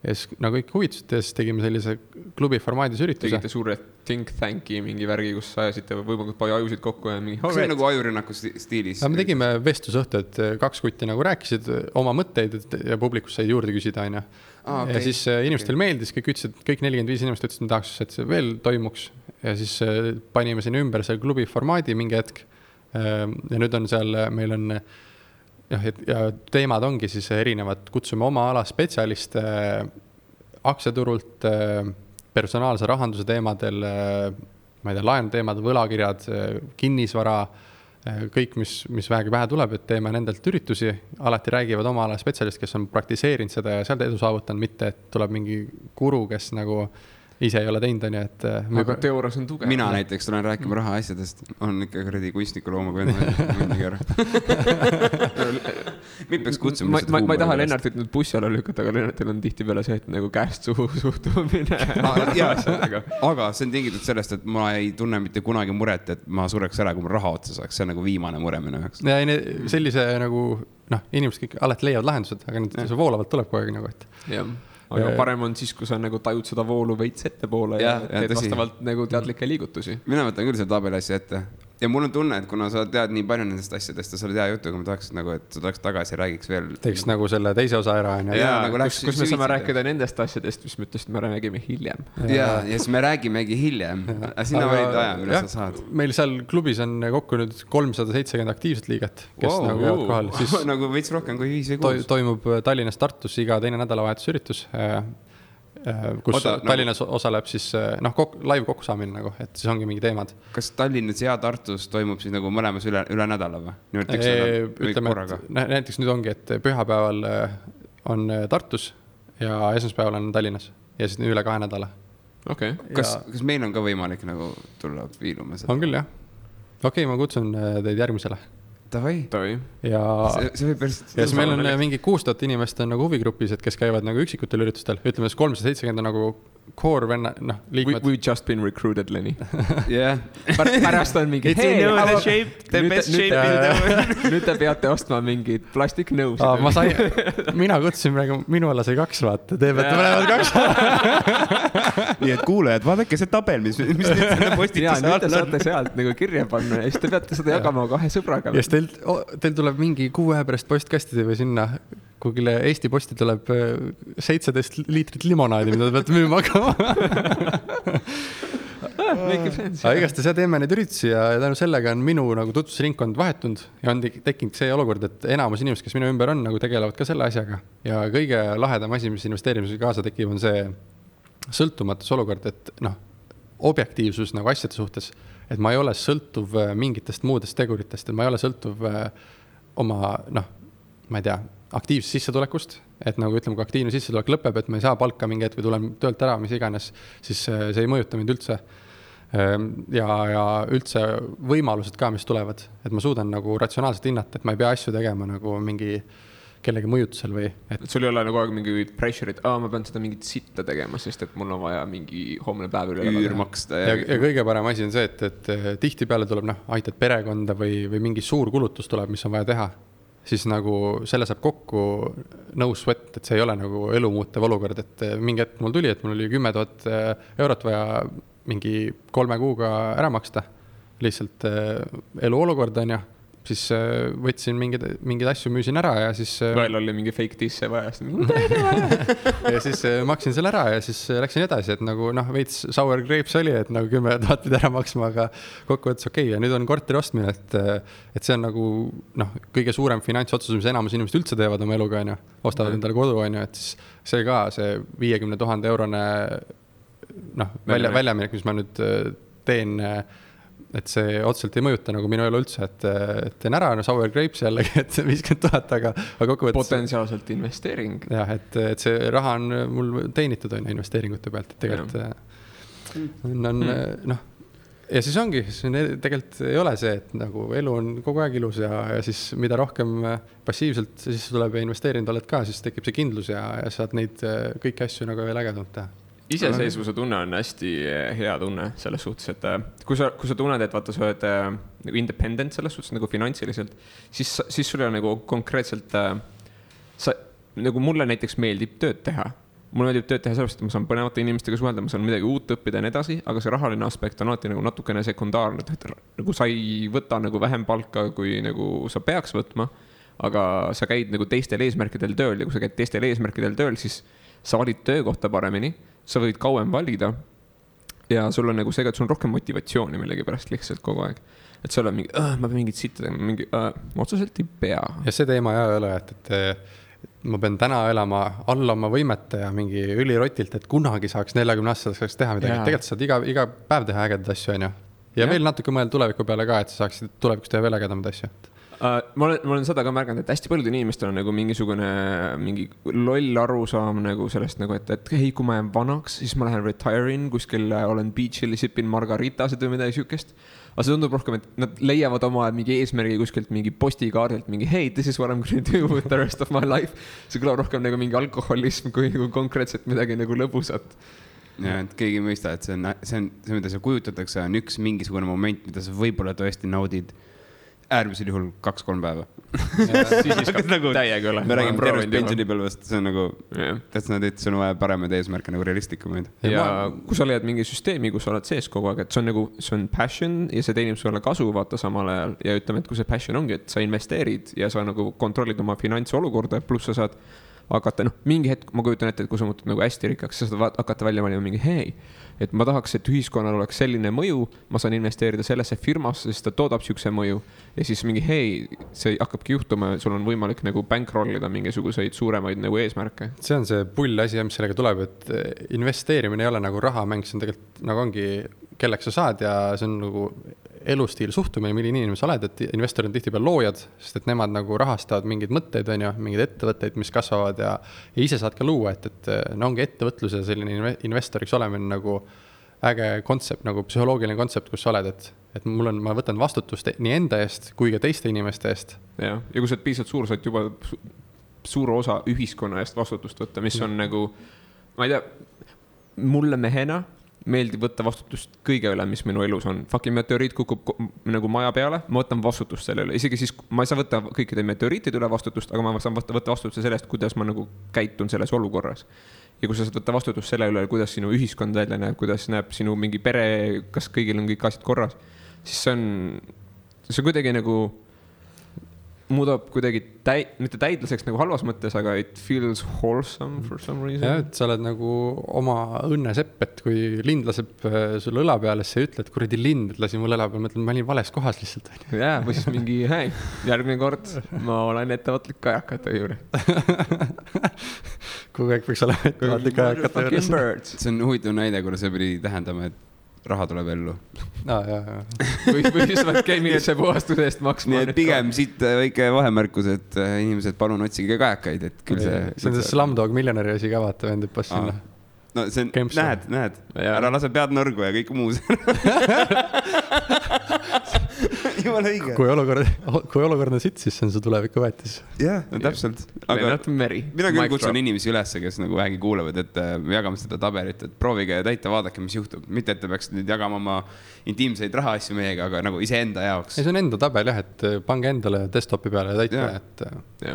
ja siis nagu kõik huvitasid ja siis tegime sellise klubi formaadis ürituse. Tegite suure think tanki mingi värgi, kus ajasite võimalikult palju ajusid kokku ja mingi... Kas see on nagu ajurünnaku stiilis? Me tegime vestlusõhtu, et 2 kutti nagu rääkisid oma mõtteid ja publikus said juurde küsida aina. Ja siis inimestel meeldis, kõik ütlesid, kõik 45 inimest ütlesid, me tahaks, et see veel toimuks ja siis panime sinna ümber selle klubi formaadi mingi hetk. Ja nüüd on seal, meil on ja teemad ongi siis erinevad, kutsume oma ala spetsialiste aktsiaturult, personaalse rahanduse teemadel, ma ei tea, laenu teemad, võlakirjad, kinnisvara, kõik, mis vähegi pähe tuleb, et teeme nendelt üritusi, alati räägivad oma ala spetsialist, kes on praktiseerinud seda ja sealt edu saavutanud, mitte et tuleb mingi guru, kes nagu ise ei ole teinud, on ju, et... Aga teoorias on tugev. Mina näiteks tulen rääkima raha asjadest, on ikka kuradi kunstniku loomaga mõndagi ära. Mind peaks kutsuma... Ma ei taha Lennartit nüüd bussi alla lükata, aga Lennartil on tihti peale see, et nagu käest suhtumine. Aga see on tingitud sellest, et ma ei tunne mitte kunagi muret, et ma sureks ära, kui ma raha otsa saaks. See on nagu viimane mure minu jaoks. Ja sellise nagu, inimesed kõik alati leiavad lahendused, aga see voolavalt tuleb kogu aeg nagu, et... Jah. Aga parem on siis, kui sa nagu tajud seda voolu veits ette poole ja teed vastavalt nagu teadlikke liigutusi. Mina võtan küll selle tabeli asja ette. Ja mul on tunne, et kuna sa tead nii palju nendest asjadest ja sa oled hea jutu, aga ma tahaks nagu, et sa tuleks tagasi ja räägiks veel. Teeks nagu selle teise osa ära. Nagu kus me saame rääkida nendest asjadest, mis me ütlesime, me räägime hiljem. Ja siis me räägimegi hiljem. Sina valid aja, mille sa saad. Meil seal klubis on kokku nüüd 370 aktiivset liiget, kes nagu jäävad kohal. Nagu veits rohkem kui 5 või 6. Toimub Tallinnas Tartus iga teine nädalavahetusüritus. Kus Tallinnas osaleb siis live kokkusaamine nagu, et siis ongi mingi teemad. Kas Tallinnas ja Tartus toimub siis nagu mõlemas üle nädala või? Ütleme, et näiteks nüüd ongi, et pühapäeval on Tartus ja esmaspäeval on Tallinnas ja siis üle 2 nädala. Okay. Kas meil on ka võimalik nagu tulla viiluma seda? On küll, jah. Okei, ma kutsun teid järgmisele. Tavai. Ja siis meil on mingi 6000 inimest on nagu huvigrupis, et kes käivad nagu üksikutel üritustel. Ütleme, 370 on nagu core venna, liikmed. We've just been recruited, Lenny. Yeah. Pärast on mingi, hey, the best shape in the world. Nüüd te peate ostma mingid plastiknõusid. Mina kutsusin praegu, minu alla sai 2 vaata. Te peate mõlemad 2. Nii et kuulejad, vaadake see tabel, mis nüüd selle postituse all on. Te saate sealt nagu kirja panna ja siis te peate seda jagama 2 sõbraga. Ja siis teil tuleb mingi 6 aja pärast postkastide või sinna kugile Eesti posti tuleb 17 liitrit limonaadi, mida te peate müüma hakkama. Aga igast ja teeme neid üritusi ja tänu sellega on minu nagu tutvusringkond vahetunud ja on tekkinud see olukord, et enamus inimesed, kes minu ümber on, nagu tegelevad ka selle asjaga. Ja kõige lahedam asi, mis investeerimisega kaasa tekib, on see sõltumatus olukord, et objektiivsus nagu asjade suhtes, et ma ei ole sõltuv mingitest muudest teguritest, et ma ei ole sõltuv oma, ma ei tea, aktiivsest sissetulekust, et nagu ütleme, kui aktiivne sissetulek lõpeb, et ma ei saa palka mingi hetk või tulen töölt ära, mis iganes, siis see ei mõjuta mind üldse. Ja üldse võimalused ka, mis tulevad, et ma suudan nagu ratsionaalselt hinnata, et ma ei pea asju tegema nagu mingi kellegi mõjutusel või... Et sul ei ole nagu aeg mingi pressure, et ma pean seda mingit sitta tegema, sest et mul on vaja mingi homne päev üle üürmaksta. Ja kõige parem asi on see, et tihti peale tuleb, aitad perekonda või mingi suur kulutus tuleb, mis on vaja teha. siis nagu selle saab kokku no sweat, et see ei ole nagu elumuutev olukord, et mingi hetk mul tuli, et mul oli 10 000 eurot vaja mingi 3 kuuga ära maksta. Lihtsalt eluolukord on ja siis võtsin mingeid asju, müüsin ära ja siis... Veel oli mingi fake disse vaja. Ja siis maksin selle ära ja siis läksin edasi, et nagu veits sour grapes oli, et nagu 10 000 pidi ära maksma, aga kokkuvõttes okei. Ja nüüd on korteri ostmine, et see on nagu kõige suurem finantsotsus, mis enamus inimesed üldse teevad oma eluga, on ju. Ostavad endale kodu, on ju, et siis see ka, see 50 000 eurone väljaminek, mis ma nüüd teen, et see otseselt ei mõjuta nagu minu elu üldse, et teen ära sour grapes jällegi, et 50 000, aga kokkuvõttes... Potentsiaalselt investeering. Jah, et see raha on mul teenitud on investeeringute pealt, et tegelikult on ja siis ongi, tegelikult ei ole see, et nagu elu on kogu aeg ilus ja siis mida rohkem passiivselt siis tuleb ja investeerinud oled ka, siis tekib see kindlus ja saad neid kõiki asju nagu veel ägedamalt teha. Iseseisvuse tunne on hästi hea tunne selles suhtes, et kui sa tunned, et vaata, sa oled nagu independent selles suhtes nagu finantsiliselt, siis sul on nagu konkreetselt, nagu mulle näiteks meeldib tööd teha. Mulle meeldib tööd teha sellepärast, et ma saan põnevate inimestega suhelda, ma saan midagi uut õppida ja nii edasi, aga see rahaline aspekt on alati nagu natukene sekundaarne, et nagu sa ei võta nagu vähem palka, kui nagu sa peaks võtma, aga sa käid nagu teistel eesmärkidel tööl ja kui sa käid teistel eesmärkidel tööl, siis sa valid töökohta paremini, sa võid kauem valida ja sul on nagu see, et sul on rohkem motivatsiooni millegi pärast lihtsalt kogu aeg. Et seal on mingi, ma pean mingit sitta tegema, otseselt ei pea. Ja see teema ei ole, et ma pean täna elama alla oma võimete ja mingi ülirotilt, et kunagi saaks 40-aastaseks saaks teha midagi. Tegelikult saad iga päev teha ägedad asju, on ju. Ja veel natuke mõelda tuleviku peale ka, et sa saaksid tulevikus teha veel ägedamad asju. Ma olen seda ka märganud, et hästi paljudel inimestel on nagu mingi loll arusaam nagu sellest nagu, et hei, kui ma jään vanaks, siis ma lähen retire'in, kuskil olen beach'il, sipin margaritasid või midagi sükest. Aga see tundub rohkem, et nad leiavad oma mingi eesmärgi kuskilt mingi postikaardilt, mingi hey, this is what I'm going to do with the rest of my life. See kõlab rohkem nagu mingi alkoholism kui konkreetselt midagi nagu lõbusat. Ja, et keegi mõista, et see, mida sa kujutatakse, on üks mingisugune moment, mida sa võib-olla tõesti naudid äärmisel juhul 2-3 päeva. Siis nagu täiega ole. Me räägime tervest pensionipõlvest, see on nagu, et sul on vaja paremaid eesmärke nagu realistikumaid. Ja kui sa leiad mingi süsteemi, kus sa oled sees kogu aeg, et see on passion ja see teenib sulle kasu vaata samal ajal ja ütleme, et kui see passion ongi, et sa investeerid ja sa nagu kontrollid oma finantsolukorda, pluss sa saad hakata, mingi hetk ma kujutan ette, et kui sa muutud nagu hästi rikkaks, sa saad hakata välja valima mingi hei, et ma tahaks, et ühiskonnal oleks selline mõju, ma saan investeerida sellesse firmasse, sest ta toodab siukse mõju ja siis mingi hei, see hakkabki juhtuma, sul on võimalik nagu bankrollida mingisuguseid suuremaid nagu eesmärke. See on see pull asi, mis sellega tuleb, et investeerimine ei ole nagu rahamäng, see on tegelikult nagu ongi, kelleks sa saad ja see on nagu elustiil suhtumine, milline inimene sa oled, et investorid on tihti peal loojad, sest et nemad nagu rahastavad mingeid mõtteid, on ju, mingeid ettevõtteid, mis kasvavad ja ise saad ka luua, et ongi ettevõtlus ja selline investoriks olemine nagu äge kontsept, nagu psühholoogiline kontsept, kus sa oled, et ma võtan vastutust nii enda eest kui ka teiste inimeste eest. Ja kui sa oled piisavalt suur, saad juba suur osa ühiskonna eest vastutust võtta, mis on nagu, ma ei tea, mulle mehena meeldib võtta vastutust kõige üle, mis minu elus on. Fucking meteoriit kukub nagu maja peale, ma võtan vastutust selle üle. Isegi siis ma ei saa võtta kõikide meteoriitide üle vastutust, aga ma saan võtta vastutust sellest, kuidas ma nagu käitun selles olukorras. Ja kui sa saad võtta vastutust selle üle, kuidas sinu ühiskond välja näeb, kuidas näeb sinu mingi pere, kas kõigil on kõik asjad korras, siis see kuidagi nagu muudab kuidagi mitte täidlaseks nagu halvas mõttes, aga it feels wholesome for some reason. Ja, et sa oled nagu oma õnnesepp, et kui lind laseb sulle õla peale, siis sa ütled, kuradi lind lasi mul õla peale, mõtlen, ma olin vales kohas lihtsalt. Jaa, või siis mingi, hei, järgmine kord ma olen ettevõtlik kajakate juures. Kogu aeg võiks olema ettevõtlik kajakate juures. See on huvitav näide, kuna see pidi tähendama, et raha tuleb ellu. Või siis vaid keemilise puhastuse eest maksma. Nii et pigem siit väike vahemärkus, et inimesed palun otsige kajakaid, et küll see... See on see Slumdog Millionäri asi ka vaata, vendib pas sinna. No see on, näed, ära lase pead nõrgu ja kõik muus. jumala õige. kui olukord on sitt, siis see on su tuleviku väetis. Jah, täpselt. Aga mina küll kutsun inimesi üles, kes nagu vähegi kuulevad, et jagame seda tabelit, et proovige täita, vaadake, mis juhtub. Mitte, et te peaks nüüd jagama oma intiimseid rahaasju meiega, aga nagu iseenda jaoks. See on enda tabel jah, et pange endale desktopi peale ja täita.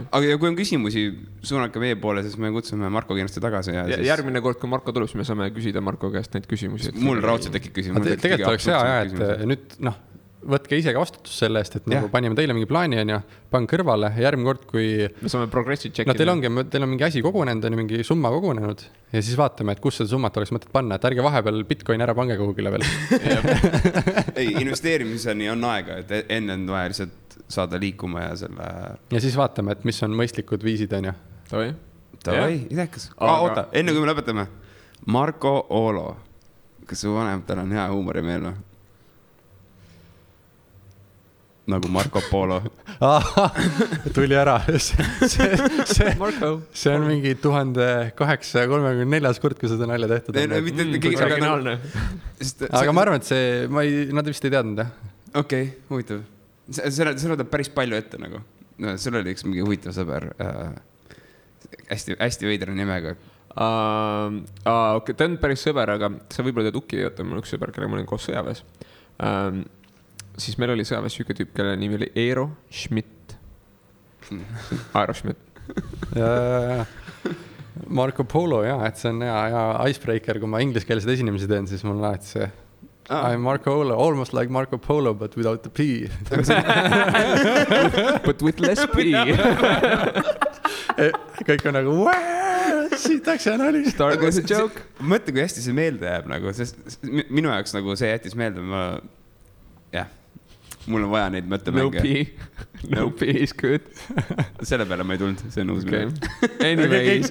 Aga kui on küsimusi, suunake meie poole, siis me kutsume Marko kindlasti tagasi. Ja järgmine kord, kui Marko tuleb, siis me saame küsida Marko käest neid küsimusi. Mul raudselt tekib küsimus. Tegelikult oleks hea, et nüüd võtke ise ka vastutus selle eest, et nagu panime teile mingi plaani on ja pange kõrvale järgmine kord, kui me saame progressi tšekkida. Teil on mingi asi kogunenud, on mingi summa kogunenud ja siis vaatame, et kus seda summat oleks mõtet panna, et ärge vahepeal Bitcoin ära pange kogugile veel. Ei, investeerimiseni on aega, et enne on vaja lihtsalt saada liikuma ja selle... Ja siis vaatame, et mis on mõistlikud viisid, on ju. Tavai, idekas. Oota, enne kui me lõpetame. Marko Olo. Kas su vanemtel on hea huumorimeel või? Nagu Marco Polo. Tuli ära. See on mingi 1834 kord, kui seda nalja tehtud on. Aga ma arvan, et nad vist ei teadnud. Okei, huvitav. Seda teeb päris palju ette nagu. Sul oli üks mingi huvitav sõber. Hästi veidra nimega. Ta on päris sõber, aga sa võib-olla tead Uki, mul üks sõber, kelle ma olin koos sõjaväes. Siis meil oli sõjaväes üks tüüp, kelle nimi oli Eero Schmidt. Aero Schmidt. Marco Polo, jah, et see on hea icebreaker, kui ma ingliskeelseid esinemisi teen, siis mul on alati see I'm Marco Polo, almost like Marco Polo, but without the P. But with less P. Kõik on nagu, siitaks ja nali. Start with a joke. Mõtle, kui hästi see meelde jääb nagu, sest minu jaoks nagu see jättis meelde, mul on vaja neid mõttemänge. No P is good. Selle peale ma ei tulnud, see on uus mine. Anyways,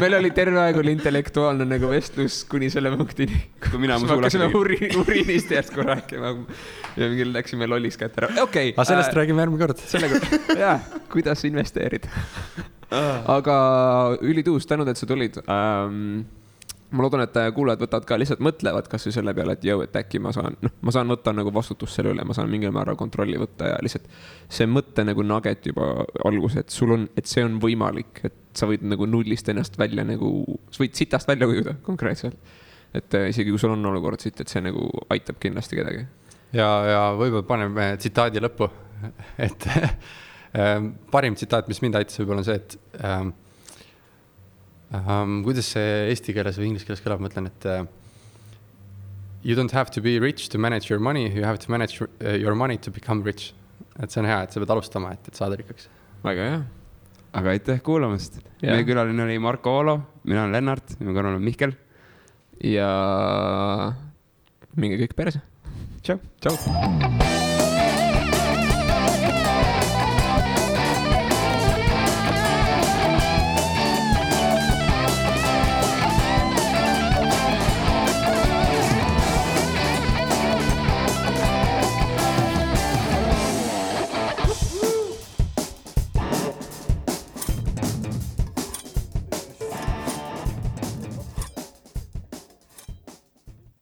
meil oli terve aeg oli intellektuaalne nagu vestlus kuni selle punktini. Kui mina hakkasime uriinist järsku rääkima ja mingil läksime lolliks kätt ära. Okay, aga sellest räägime järgmine kord. Jah, kuidas investeerida. Aga ülituus, tänud, et sa tulid. Ma loodan, et kuulajad võtavad ka lihtsalt mõtlevad kas või selle peale, et et äkki ma saan võtta nagu vastutust selle üle, ma saan mingil määral kontrolli võtta ja lihtsalt see mõtte nagu nugget juba algus, et see on võimalik, et sa võid nagu nullist ennast välja nagu, sa võid sitast välja kujuda konkreetselt. Et isegi kui sul on olukord siit, et see nagu aitab kindlasti kedagi. Ja võib-olla paneme tsitaadi lõppu, et parim tsitaat, mis mind aitas võib-olla on see, et kuidas see eesti keeles või inglise keeles kõlab, ma ütlen, et you don't have to be rich to manage your money, you have to manage your money to become rich. Et see on hea, et sa pead alustama, et saada rikkaks. Väga hea. Aga aitäh kuulamast. Meie külaline oli Marko Olo, mina olen Lennart, minu kõrval on Mihkel. Ja minge kõik perse. Tšau. Tšau.